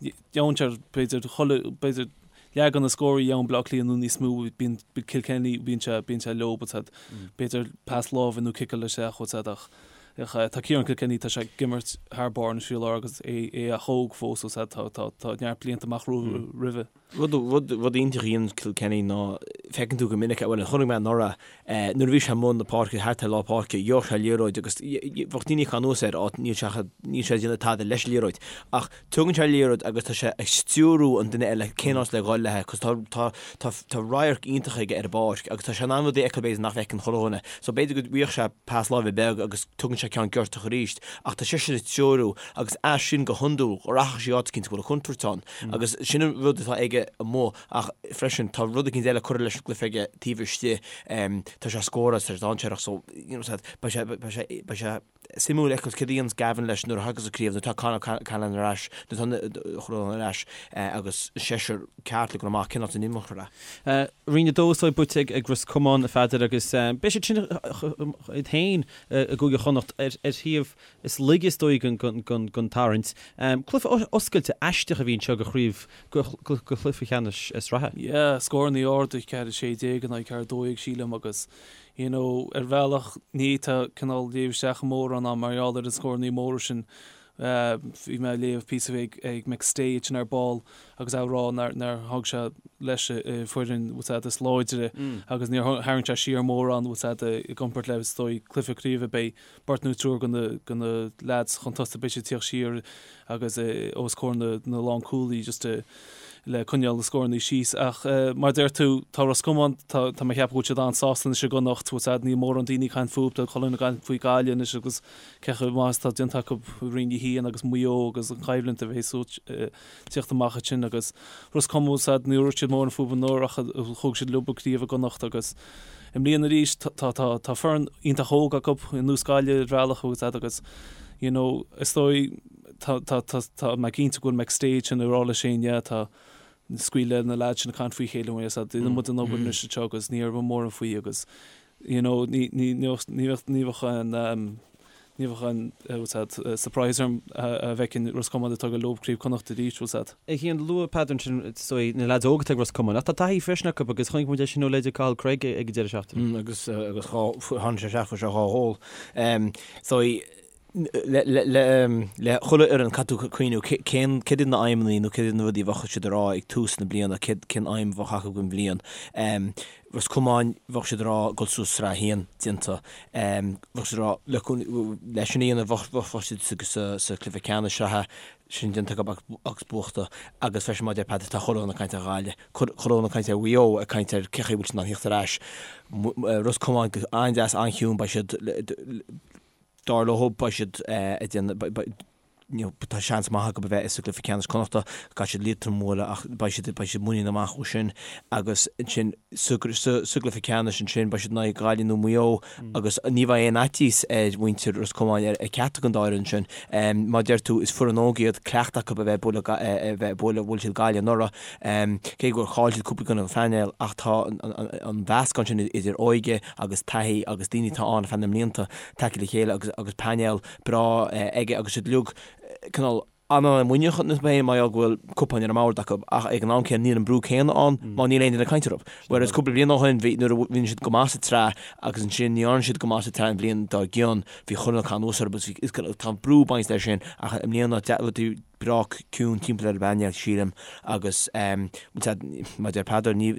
gheobhann sé b'fhéidir chuile, b'fhéidir leath de na scóraí a gheobhann Bleá Cliath nó níos mó, bíonn Kilkenny, bíonn sé, bíonn sé leo, bhfuil a fhios a'd, b'fhéidir pas láimhe nó ciceáil isteach, bhfuil a fhios a'd ach. Tá Ciarán Kilkenny, tá sé ag imirt thar barr anois faoi láthair agus é ach óg fós, bhfuil a fhios a'd, tá tá neart blianta amach roimhe. Rud rud rud iontach a dhéanann Kilkenny ná feiceann tú go minic, bhuel chonaic mé anuraidh, nuair a bhí sé i mbun na páirce, thart ar lár páirce, gheobhadh sé liathróid agus bheadh daoine ag cur anuas air, á níl sé níl sé ag déanamh tada leis an liathróid. Ach tugann sé an liathróid agus tá sé ag stiúrú an duine eile cén áit le dhul léi, cos tá tá tá tá radharc iontach aige ar an bpáirc agus tá sé in ann rudaí a fheiceáil b'fhéidir nach bhfeiceann chuile dhuine. So b'fhéidir go bhfaigheadh sé pas láimhe beag agus tugann sé ceann giortach arís ach tá seisean ag treorú agus as sin go hiondúil rachaidh sé áit eicínt go bhfuil an chontúirt ann agus sin an rud atá aige amuigh ach freisin tá rud eicínt eile curtha leis an gcluiche aige taobh istigh tá sé ag scóráil tá sé dainséarach so you know beidh sé beidh sé beidh sé suimiúil a fheiceáil céard a dhéanas Gavin leis nuair a thagas an craobh, nuair atá Conor Cahalane ar ais, nuair atá Chuirreáin ar ais agus seisear ceart le dul amach, cén áit a n-imeofar é? Roinn 2 is dóigh buaite ag Ros Comáin, a Pheadair, agus beidh siad sin iad féin i gCúige Chonnacht ar thaobh is laige is dóigh den tarraingt. Cluiche oscailte aisteach a bhí anseo do chraobh, do chluiche ceannais sraithe. Yeah, scórannaí arda, 4-16 in aghaidh 4-12 sílim agus You know, ar bhealach, ní fhéadfá cineál léamh isteach mórán ann mar gheall ar na scórannaí móra sin. Bhí mé ag léamh píosa ag ag McStay ansin ar ball agus é ag rá nár nár thug sé leis a foireann bhfuil a fhios a'd is láidre agus níor tharraing sé siar mórán bhfuil a fhios a'd i gcomparáid le is dóigh cluiche craoibhe beidh beirt nó triúr de na de na leaids chun tosaigh beidh siad ag tíocht siar agus os comhair na na lánchúlaí just a. le coinneáil na scórannaí síos. Ach mar a deir tú, tá Ros Comáin, tá tá mé ag ceapadh go bhfuil siad an-sásta anois i gConnacht, bhfuil a fhios a'd, níl mórán daoine ag caint fúthu, tá chuile dhuine ag caint faoi Gaillimh anois agus cé chomh maith is atá déanta acu i Roinn 1 agus Maigh Eo agus an choimhlint a bheas ag tíocht amach ansin agus Ros Comáin, bhfuil a fhios a'd, ní raibh siad mórán fúthu anuraidh ach thóg siad leo an craobh i gConnacht agus i mbliana arís tá tá tá foireann iontach óg acu ar nós Gaillimh ar bhealach, bhfuil a fhios a'd agus you know is dóigh Tá, tá, tá, tá mé cinnte go bhfuil McStay sin ag rá leis féin, yeah, tá, scaoil le na lads sin ag caint faoi chéile, bhfuil a fhios a'd, déanann muid an obair anois anseo agus ní raibh mórán faoi agus, you know, ní, ní, ní bheadh, ní bheadh, ní bheadh an, um, ní bheadh an, eh, bhfuil a fhios a'd, eh, surprise orm a, a bhfeicfinn Ros Comáin ag tógáil leo Craobh Connacht arís, bhfuil a fhios a'd. A Chian, luaigh Peadar ansin, is dóigh, na lads óga atá ag Ros Comáin, ach tá taithí freisin acu agus chonaic muid é sin ó leithéid Cathal Cregg ag an deireadh seachtaine. Mm, agus, eh, agus dhá, tháinig sé isteach fuair sé dhá ghól. Um, so, Le chuile fhoireann, caithfidh tú cuimhniú cén, céard iad na aidhmeanna nó céard iad na rudaí a bheadh siad ag rá ag tús na bliana, céard, cén aidhm a bheadh acu don bhliain. Ros Comáin, bheadh siad ag rá dul suas Sraith 1, déanta. Bheadh siad ag rá le, leis sin a dhéanamh bheadh, bheadh siad sa, sa cluiche ceannais sraithe, sin déanta acu agus buachta. Agus freisin mar a deir Peadar, tá chuile dhuine ag caint ar Ghaillimh, chuile dhuine ag caint ar Mhaigh Eo, ag caint ar cé chaoi a bhfuil siad in ann theacht ar ais. Ros Comáin go an-deas, an-chiúin, beidh siad, Dar leo, beidh siad ag déanamh, you know, tá seans maith acu a bheith sa gcluiche ceannais Connachta, caithfidh siad Liatroim a bhualadh ach beidh siad, beidh siad muiníneach amach ó sin agus ansin sa, sa, sa gcluiche ceannais ansin beidh siad in aghaidh Gaillimh nó Maigh Eo agus ní bheidh aon fhaitíos ar mhuintir Ros Comáin ar, ar ceachtar den dá fhoireann sin. Mar a deir tú, is foireann óg iad, cleachtadh acu a bheith ag bualadh, a bheith ag bualadh, bhuail siad Gaillimh anuraidh, cé gur chaill siad cúpla i gcoinne an phainéil ach tá an, an, an mheascán sin idir óige agus taithí agus daoine atá ann ar feadh na mblianta tagtha le chéile agus agus painéal breá aige agus siad uilig cineál an-mhuiníneach iontu féin mar gheall go bhfuil cupáin ar an mbord acu ach ag an am céanna níl an brú céanna ann mar níl aon duine ag caint orthu. Whereas cúpla bliain ó shin bhí nuair a bhí siad go maith sa tsraith agus ansin ní dhearna siad go maith sa tsraith an bhliain dár gcionn bhí chuile dhuine ag caint anuas orthu agus bhí tá an brú bainte leis sin ach i mbliana rudaí breá ciúin timpeall ar an bpainéal, sílim, agus mar a deir Peadar, ní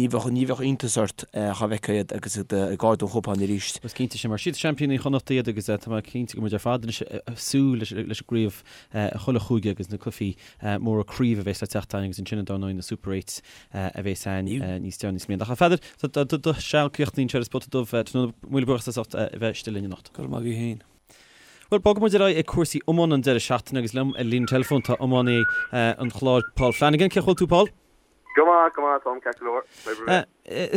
bheadh ní bheadh iontas ort dhá bhfeicfeá iad agus iad ag ardú an chupáin arís. Is cinnte sin, mar is iad seaimpíní Chonnacht iad agus tá mé cinnte go bhfuil muid ar fad anois ag súil leis an gcraobh chuile chúige agus na cluichí móra craoibhe a bheas le teacht againn agus ansin dar ndóigh na Super Eights a bheas ann níos deireanaí sa mbliain. Ach a Pheadair, tá do seal críochnaithe anseo ar An Spota Dubh tráthnóna, míle buíochas as ucht a bheith istigh linn anocht. Go raibh maith agaibh féin. Bhuel, bogfaidh muid ar aghaidh ag cúrsaí iomána an deireadh seachtaine agus liom ar líne teileafóin tá iománaí an Chláir, Paul Flanagan. Cén chaoi a bhfuil tú, Paul? Go maith, go maith, Tom, ceart go leor. Oibre mhaith.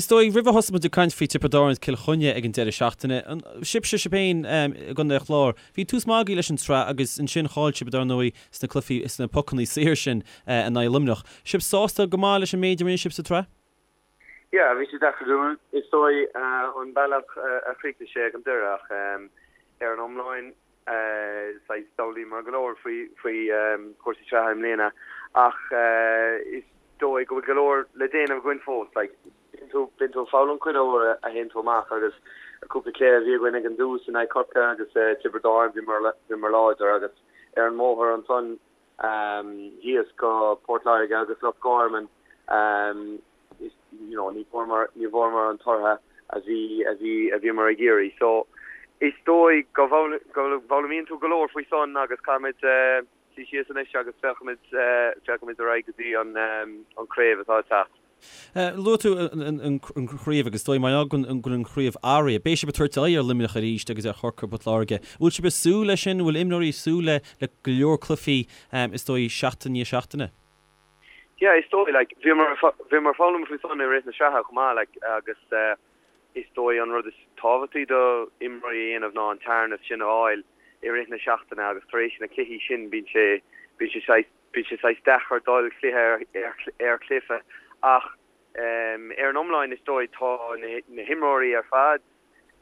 Is dóigh, roimh a thosóidh muid ag caint faoi Tiobraid Árann is Cill Chainnigh ag an deireadh seachtaine, sibhse, sibh féin i gContae an Chláir, bhí tús maith agaibh leis an tsraith agus ansin chaill sibh, dar ndóigh, sna cluichí, sna pocannaí saor sin in aghaidh Luimneach. Sibh sásta go maith leis an méid a rinne sibh sa tsraith? Yeah, bhí sé deacair dúinn, is dóigh, an bealach a chríochnaigh sé ag an deireadh ach ar an iomlán, saghas d'fhoghlaíomar go leor faoi faoi chúrsaí sraithe i mbliana ach is dóigh go bhfuil go leor le déanamh againn fós. Like, bíonn tú, bíonn tú ag foghlaim chuile uair a théann tú amach agus cúpla cluiche a bhí againn ag an dtús in aghaidh Corcaigh agus Tiobraid Árann, bhíomar, bhíomar láidir agus ar an mbóthar ansan thíos go Port Láirge agus Loch Garman you know ní bhfuaireamar ní bhfuaireamar an tortha a bhí a bhí a bhíomar ag iarraidh. So is dóigh go go bhfoghlaimíonn tú go leor faoi san agus caithfimid suí síos anois agus féachfaimid féachfaimid ar aghaidh go dtí an an craobh atá ag teacht. Luaigh tú an chraobh agus is dóigh mar go bhfuil an chraobh athraithe. Beidh sibh ag tabhairt aghaidh ar Luimneach arís agus ar Chorcaigh Port Láirge. Bhfuil sibh ag súil leis sin? Bhfuil imreoirí ag súil le le go leor cluichí is dóigh seachtain i ndiaidh seachtaine? Yeah, is dóigh, like, bhíomar bhíomar ag foghlaim faoi san i rith na sraithe chomh maith, like, agus is dóigh an rud is tábhachtaí do imreoirí a dhéanamh ná an tearnas sin a fháil i rith na seachtaine agus tar éis na cluichí sin bíonn sé bíonn sé saghas Bíonn sé saghas deacair dul cluiche ar chluiche ach ar an iomlán is dóigh tá na himreoirí ar fad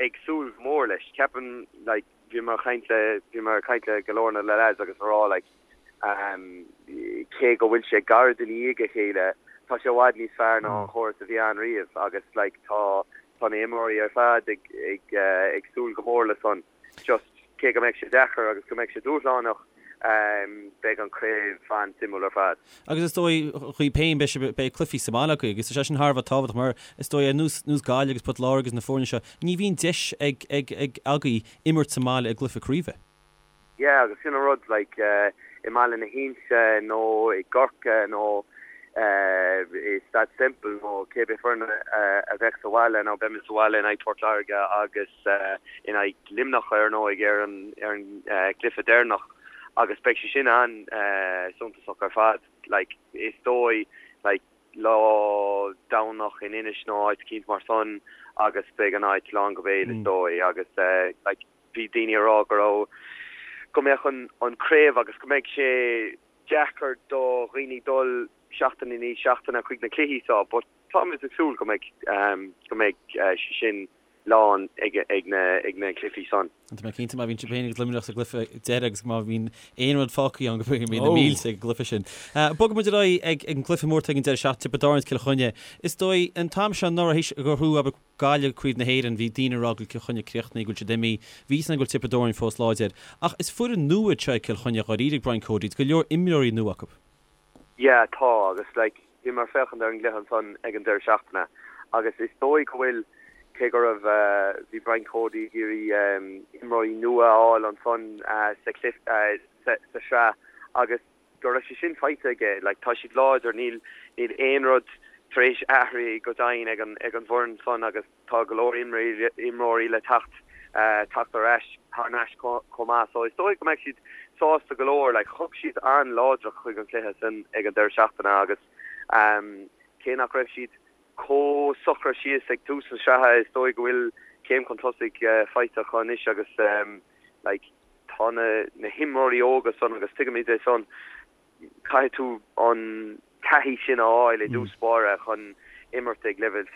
ag súil go mór leis. Ceapaim like bhíomar ag caint le bhíomar ag caint le go leor na lads agus a rá like cé go bhfuil sé gairid i ndiaidh a chéile tá sé i bhfad níos fearr ná an chóras a bhí ann riamh agus like tá tá na himreoirí ar fad ag ag ag súil go mór le san. Just, cé go mbeidh sé deacair agus go mbeidh sé dúshlánach, beidh an craobh an-suimiúil ar fad. Agus is dóigh, dhaoibh féin, beidh sibh, beidh cluichí sa mbaile agaibh agus tá sé sin thar a bheith tábhachtach mar is dóigh ar nós, nós Gaillimh agus Port Láirge agus na foirne seo, ní bhíonn deis ag, ag, ag agaibh imirt sa mbaile i gcluiche craoibhe. Yeah, agus sin an rud, like, i mBaile na hInse nó i gCorcaigh nó. It's that simple nó cé bith foireann a bheadh sa bhaile nó beimid sa bhaile in aghaidh Port Láirge agus in aghaidh Luimneach ar ndóigh ar an ar an gcluiche deireanach agus beidh sé sin an-suntasach ar fad. Like is dóigh like lá Domhnach in Inis nó áit eicínt mar san agus beidh an áit lán go béal is dóigh agus like bhí daoine ag rá go raibh go mbeadh an an craobh agus go mbeidh sé deacair do dhaoine dul seachtain i ndiaidh seachtaine chuig na cluichí seo but táimid ag súil go mbeidh go mbeidh sé sin lán ag ag na ag na cluichí san. Tá mé cinnte má bhíonn sibh féin agus Luimneach sa gcluiche deiridh agus má bhíonn aon rud fágtha ann go mbeidh na mílte ag an gcluiche sin. Bogfaidh muid ar aghaidh ag an gcluiche mór atá ag an deireadh seachtaine, Tiobraid Árann is Cill Chainnigh. Is dóigh an t-am seo anuraidh théis gur bhuaigh abair Gaillimh Craobh na hÉireann, bhí daoine ag rá go bhfuil Cill Chainnigh críochnaithe, go bhfuil siad imithe. Bhí a fhios againn go bhfuil Tiobraid Árann fós láidir. Ach is foireann nua iad seo ag Cill Chainnigh dháiríre ag Brian Cody, tá go leor imreoirí nua acu. Yeah, tá, agus like, bhíomar ag féachaint ar an gcluiche ansan ag an deireadh seachtaine agus is dóigh go bhfuil, cé go raibh, bhí Brian Cody ag iarraidh imreoirí nua a fháil ansan sa chluiche, sa sraith agus, go raibh sé sin faighte aige. Like, tá siad láidir, níl, níl aon rud tar éis athrú go deimhin ag an, ag an bhfoireann san agus tá go leor imreoirí, imreoirí le teacht, teacht ar ais, thar n-ais chomh maith. So is dóigh go mbeidh siad sásta go leor. Like, thug siad an-láidreacht chuig an chluiche san ag an deireadh seachtaine agus cé nach raibh siad chomh socraithe síos ag tús na sraithe, is dóigh go bhfuil céim chun tosaigh faighte acu anois agus like, tá na na himreoirí óga san agus tuigimid é san, caithfidh tú an taithí sin a fháil i dtús báire chun imirt ag leibhéal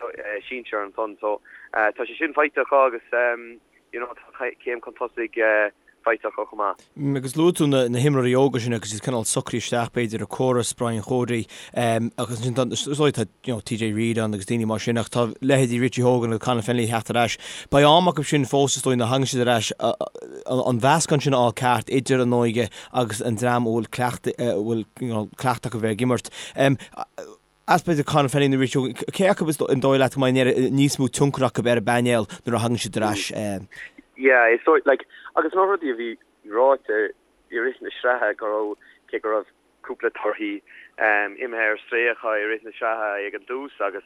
sinsir ansan. So tá sé sin faighte acu agus you know tá céim chun tosaigh faighte acu chomh maith. Agus luaigh tú na himreoirí óga sin agus iad cineál socraithe isteach b'fhéidir i córas Brian Chody agus ansin tá is dóigh tá you know TJ Reid ann agus daoine mar sin ach tá leithéidí Richie Hogan agus Conor Fennelly ag theacht ar ais. Beidh am acu sin fós is dóigh nuair a thagann siad ar ais an mheascán sin a fháil ceart idir an óige agus an dream a bhfuil cleachtadh a bhfuil you know cleachtadh acu bheith ag imirt. As b'fhéidir Conor Fennelly nó Richie Hogan, cé acu is an dóigh leat go mbeidh níos mó tionchar acu ar an bpainéal nuair a thagann siad ar ais? Yeah, is dóigh like agus na rudaí a bhí ráite i rith na sraithe go raibh cé go raibh cúpla torthaí imithe ar strae acu i rith na sraithe ag an dtús agus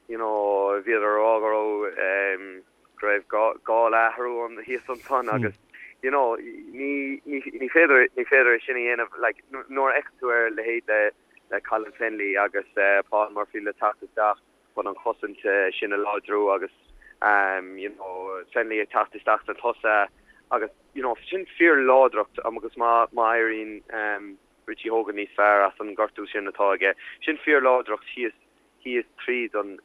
you know bhíodar a rá go raibh go raibh gá le athrú an thíos ansan agus you know ní ní ní féidir ní féidir é sin a dhéanamh like nuair a fheiceann tú ar leithéid le le Colin Fennelly agus Paul Murphy le teacht isteach chun an chosaint sin a láidriú agus you know Fennelly ag teacht isteach sna tosaithe agus you know sin fíorláidreacht agus má má éiríonn Richie Hogan níos fearr as an gortú sin atá aige sin fíorláidreacht thíos thíos tríd an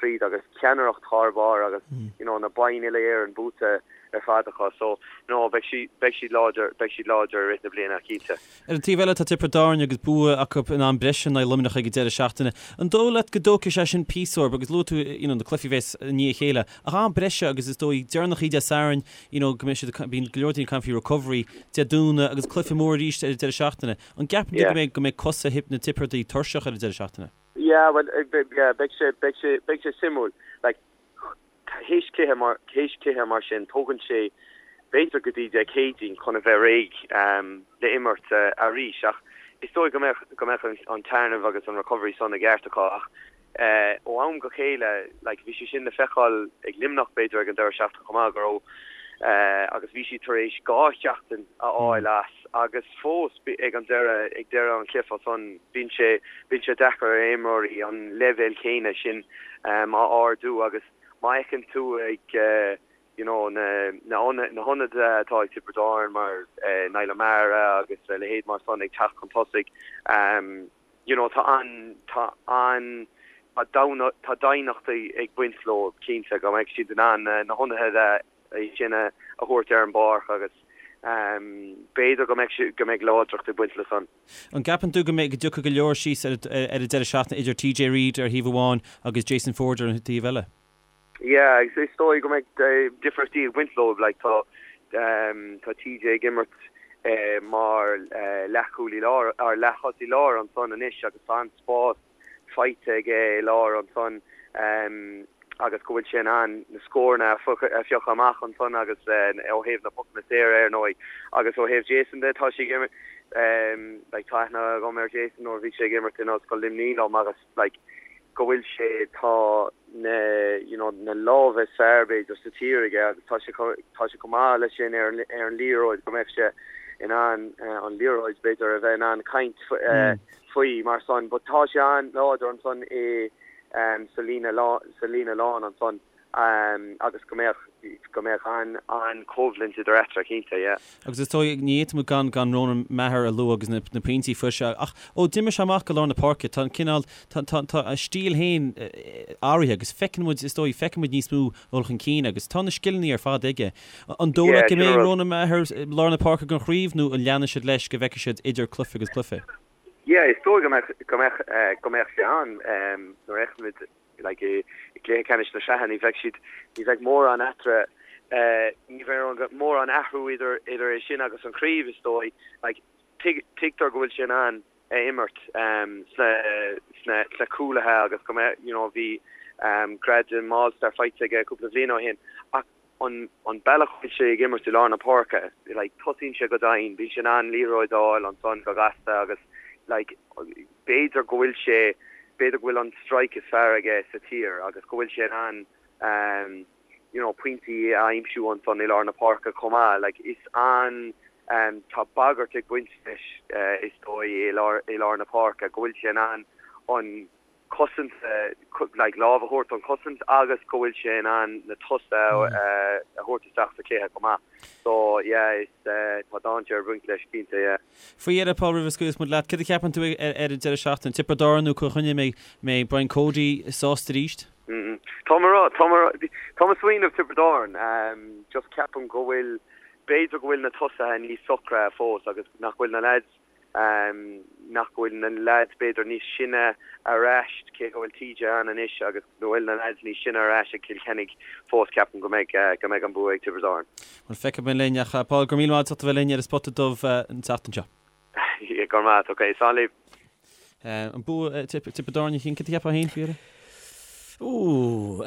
tríd agus ceannaireacht thar barr agus you know na boinn uile-Éireann buaite ar fad acu so you know beidh siad beidh siad láidir beidh siad láidir i rith na bliana cinnte. Ar an taobh eile, tá Tiobraid Árann agus bua acu in am breise in aghaidh Luimneach ag an deireadh seachtaine. An dóigh leat go dtógfaidh sé sin píosa orthu agus luaigh tú you know na cluichí a bheas i ndiaidh a chéile ach am breise agus is dóigh deireanach Dé Sathairn you know go mbeidh siad bíonn go leor daoine ag caint faoi recovery Dé Domhnaigh agus cluiche mór arís ar an deireadh seachtaine. An gceapann tú go mbeidh go mbeidh cosa na Tiobradaigh tuirseach ar an deireadh seachtaine? Yeah well yeah beidh sé beidh sé beidh sé suimiúil like Théis cluiche mar théis cluiche mar sin, tógann sé b'fhéidir go dtí Dé Céadaoin chun a bheith réidh le imirt arís. Ach is dóigh go mbeadh go mbeadh an téarnamh agus an recovery san i gceart acu. Ach ó am go chéile, like, bhí sé sin le feiceáil ag Luimneach b'fhéidir ag an deireadh seachtaine chomh maith go raibh agus bhí siad tar éis 2 sheachtain a fháil as agus fós ag an deireadh ag deireadh an chluiche san bíonn sé bíonn sé deacair ar imreoirí an leibhéal céanna sin a ardú agus má fheiceann tú ag you know na na na hionadaithe atá ag Tiobraid Árann mar Niall O'Meara agus a leithéid mar san ag teacht chun tosaigh you know tá an tá an tá tá doimhneacht ag baint leo cinnte go mbeidh siad in ann na hionadaithe sin a thabhairt ar an bpáirc agus b'fhéidir go mbeidh go mbeidh láidreacht ag baint le san. An gceapann tú go mbeidh go dtiocfaidh go leor síos ar ar an deireadh seachtaine idir TJ Reid ar thaobh amháin agus Jason Forde ar an taobh eile? Yeah, is dóigh go mbeidh difríochtaí ag baint leo. Like tá tá TJ ag imirt mar leathchúlaí láir or leath-thosaí láir ansan anois agus tá an-spás faighte aige i lár ansan agus go bhfuil sé in ann na scóranna a phiocadh amach ansan agus ó thaobh na pocanna saora ar ndóigh agus ó thaobh Jason de tá sé ag imirt. Like tá aithne agam ar Jason nuair a bhí sé ag imirt in Ollscoil Luimnigh liom agus like go bhfuil sé tá na you know na lámha is fearr b'fhéidir sa tír aige agus tá sé tá sé chomh maith leis sin ar an ar an liathróid go mbeadh sé in ann an liathróid b'fhéidir a bheith in ann caint faoi mar san but tá sé an-láidir ansan i sa líne sa líne lán ansan. agus go mbeadh, go mbeadh an-choimhlint idir eatarthu, cinnte, yeah. Agus is dóigh, ní fhéadfaidh muid gan, gan Ronan Maher a lua agus na, na pointí a fuair sé. Ach ó d'imir sé amach go lár na páirce, tá an cineál, tá, tá, tá a stíl féin athraithe agus feiceann muid, is dóigh, feiceann muid níos mó dul chun cinn agus tá na scileanna ar fad aige. An dóigh leat go mbeidh Ronan Maher i lár na páirce don chraobh nó an leanfaidh siad leis go bhfeicfidh siad idir cluiche agus cluiche? Yeah, is dóigh go mbeadh, go mbeadh, go mbeadh sé ann nuair a fheicimid like i gcluiche ceannais na sraithe ní bheidh siad, ní bheidh mórán eatarthu, ní bheidh mórán athrú idir idir é sin agus an chraobh is dóigh. Like tuig, tuigtear go bhfuil sé in ann a imirt sna sna sna cúlaithe agus go mbeidh, you know, bhí gradam All Star faighte aige cúpla bhliain ó shin ach an an bealach a bhfuil sé ag imirt i lár na páirce, like tosaíonn sé go domhain, bíonn sé in ann liathróid a fháil ansan go gasta agus like b'fhéidir go bhfuil sé, b'fhéidir go bhfuil an strike is fearr aige sa tír agus go bhfuil sé in ann you know pointí a aimsiú ansan i lár na páirce chomh maith. Like is an, tá bagairt ag baint leis is dóigh i lár, i lár na páirce, go bhfuil sé in ann an cosaint, like lámh a thabhairt don chosaint agus go bhfuil sé in ann na tosaithe a thabhairt isteach sa chluiche chomh maith. So yeah is tá dainséar ag baint leis cinnte yeah. Faoi dheireadh, Paul, roimh a scaoilfeas muid leat, céard a cheapann tú ar an deireadh seachtaine? Tiobraid Árann nó Cill Chainnigh, an mbeidh Brian Cody sásta arís? Tá mé tá mé tá mé ag smaoineamh Tiobraid Árann. Just ceapaim go bhfuil, b'fhéidir go bhfuil na tosaithe níos socra fós agus nach bhfuil na leaids nach bhfuil na leaids b'fhéidir níos sine ar ais, cé go bhfuil TJ ann anois agus go bhfuil na leaids níos sine ar ais ag Cill Chainnigh fós, ceapaim go mbeidh go mbeidh an bua ag Tiobraid Árann. Bhuel, feicfidh muid linn ach Paul, go raibh míle maith agat as ucht a bheith linn ar an Spota Dubh an tseachtain seo. Go raibh maith agat, ok, slán libh. An bua Tiobraid Árann a Chian, céard a cheapfá féin faoi dheireadh? Ooh,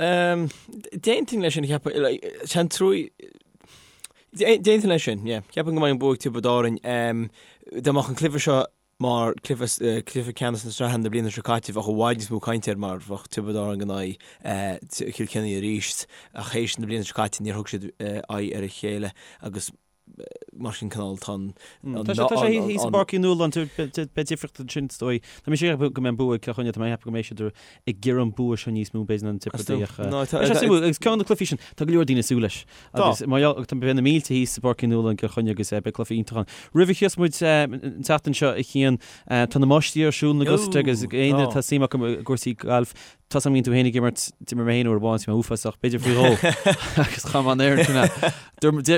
d'aontóinn leis sin, cheapfainn, like, sean trúi, D'aontóinn leis sin, yeah. Ceapaim go mbeidh an bua ag Tiobraid Árainn. Dá mbeadh an cluiche seo mar cluiche cluiche ceannais na sraithe na bliana seo caite bheadh i bhfad níos mó cainte air mar bheadh Tiobraid Árann in aghaidh Chill Chainnigh arís ach théis na bliana seo caite níor thug siad aghaidh ar a chéile agus mar sin cineál tá an Tá sé thíos i bPáirc Uí Nualláin, beidh difríocht ansin is dóigh. Tá mise ag ceapadh go mbeidh an bua ag Cill Chainnigh, tá mé ag ceapadh go mbeidh siad ag iarraidh an bua seo níos mó b'fhéidir ná an Tiobraid ach beidh sé suimiúil agus ceann de na cluichí sin tá go leor daoine ag súil leis agus mar gheall tá beidh na mílte thíos i bPáirc Uí Nualláin i gCill Chainnigh agus beidh cluiche iontach ann. Roimh a scaoilfeas muid an tseachtain seo a Chian tá na Máistrí ar siúl in Augusta agus aon duine atá suim acu i gcúrsaí gailf Tá 's agam go mbíonn tú féin ag imirt, d'imir mé féin uair amháin, bhí mé uafásach, b'fhéidir faoi dhó, agus cha mbeadh an oiread sin ann.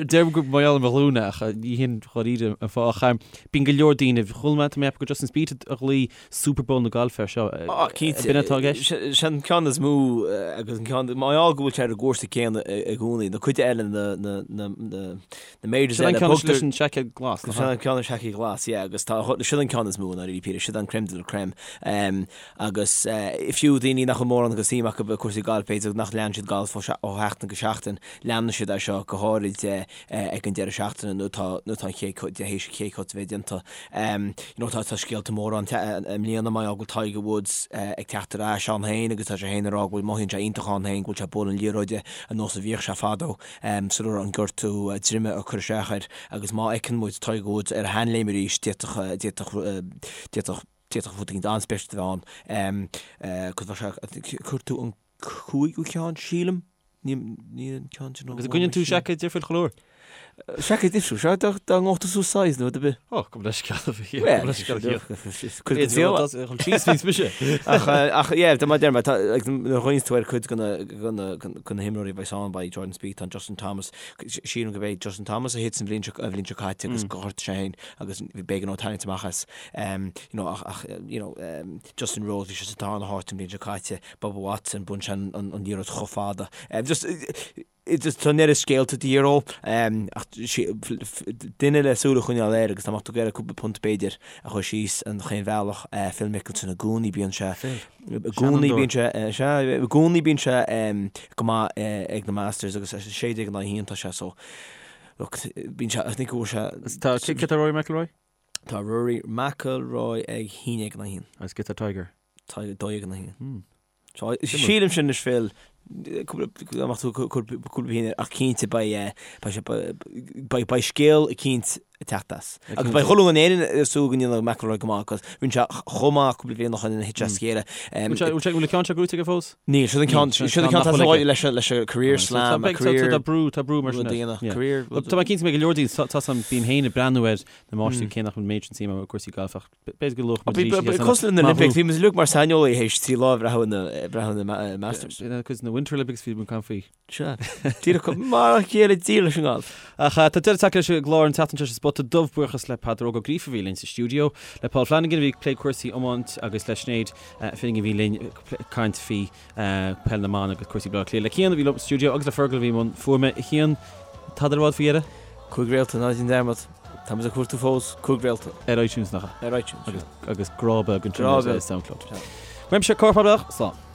Deirim gur mar gheall ar mo ghlúine ach ní hin dháiríre an fáth. Ach bíonn go leor daoine, chuala mé, tá mé ag ceapadh gur Justin Spieth a ghlaoigh Super Bowl na gailfe air seo. Ah, cinnte. B'in atá i gceist? Sin an ceann is mó agus an ceann, mar gheall go bhfuil sé ar an gcúrsa céanna i gcónaí, na cuid eile na, na, na, na, na majors eile. Sin an ceann leis an seaicéad glas. Sin an ceann leis an seaicéad glas, yeah, agus tá, sin an ceann is mó i ndáiríre píre, sin an crème de la crème. Agus fiú daoine nach bhfuil mórán de shuim acu i cúrsaí gailf, b'fhéidir nach leanann siad galf ó sheachtain go seachtain, leanann siad é seo go háirid ag an deireadh seachtaine nuair atá nuair atá an chéad cut, théis an chéad cut a bheith déanta. You know tá tá scéalta móra ann i mbliana mar gheall go bhfuil Tiger Woods ag teacht ar ais ann féin agus tá sé féin ag rá go bhfuil mothaíonn sé iontach ann féin go bhfuil sé ag bualadh an liathróide ar nós a bhíodh sé fadó sula raibh an gortú droime ag cur isteach air agus má fheiceann muid Tiger Woods ar a sheanléim arís d'fhéadfadh d'fhéadfadh d'fhéadfadh D'fhéadfadh rud éigin an-speisialta a bheith ann. Cos bheadh sé, cuir tú an cúigiú ceann, sílim? Ní an ceann sin. Agus an gcoinníonn tú seaicéad difriúil chuile uair? Seaicéad difriúil, sea, dá ngabhadh tú suas size nó rud ar bith. Ó, gabh mo leithscéal a bhí, gabh mo leithscéal a bhí. Cuid den saol. Chun síos níos mise. Ach, ach, yeah, mar a deir mé, tá, like, nuair a chuimhníonn tú ar cuid de na, de na, de na himreoirí a bheas ann, beidh Jordan Spieth, tá Justin Thomas, sílim go b'é Justin Thomas a thit an bhliain seo, an bhliain seo caite agus gur ghortaigh sé féin agus b'éigean dó tarraingt amach as. You know, ach, ach, you know, Justin Rose, bhí sé sa darna háit an bhliain seo caite, Bubba Watson, bhain sé an, an, an liathróid chomh fada. Just, just tá an oiread scéalta de dhíth orthu, ach duine le súil a choinneáil air agus dá mbeadh tú ag iarraidh cúpla punt b'fhéidir a chur síos an chaon bhealach, Phil Mickelson i gcónaí bíonn sé, i gcónaí bíonn sé, sea, i gcónaí bíonn sé go maith ag na Masters agus 16 in aghaidh 1 tá sé so, look, bíonn sé, I think go bhfuil sé. Tá, cé tá Rory McIlroy? Tá Rory McIlroy ag 1-1. Agus cad é Tiger? Tiger 2-1. Sílim sin anois Phil, cúpla amach tú cúpla bliain ach cinnte beidh beidh beidh scéal eicínt ag teacht as. Agus beidh chuile dhuine in Éirinn ag súil go ndéanfaidh McIlroy go maith agus rinne sé chomh maith cúpla bliain ó shin thit sé as a chéile. Bhfuil sé bhfuil an ceann seo gnóthaithe aige fós? Níl, seo an ceann seo an ceann tá leis leis an career slam, a career Tá brú tá brú mar sin. Career Tá mé cinnte go mbeidh go leor daoine tá sam bím féin ag breathnú ar na máistrí cé nach bhfuil méid sin suim agam i gcúrsaí gailf ach B'fhéidir go luafadh muid arís é. Cosúil le na Olympics, bhí muid uilig mar saineolaithe théis 3 lá ag breathnú na Masters. Agus na Winter Olympics bhí muid ag caint faoi. Sea. Díreach mar a chéile díreach leis an ngalf. Ach tá deireadh tagtha leis an gclár an tseachtain seo sa Spota Dubh. Buíochas le Peadar Óg Ó Gríofa a bhí linn sa stiúideo, le Paul Flanagan a bhí ag plé cúrsaí iomáint agus le Sinéad Finnegan a bhí linn ag caint faoi Peil na mBan agus cúrsaí Baile Átha Cliath. Le Cian a bhí liom sa stiúideo agus le Fergal a bhí i mbun fuaime. A Chian, tada le rá faoi dheireadh? 5 réalta, ná déan dearmad. Tá muid ag cuartú fós, 5 réalta. Ar iTunes, nach ea? Ar iTunes, sea. Agus grá beag ansin ar SoundCloud. Uaimse, Cárthach Mac Slán.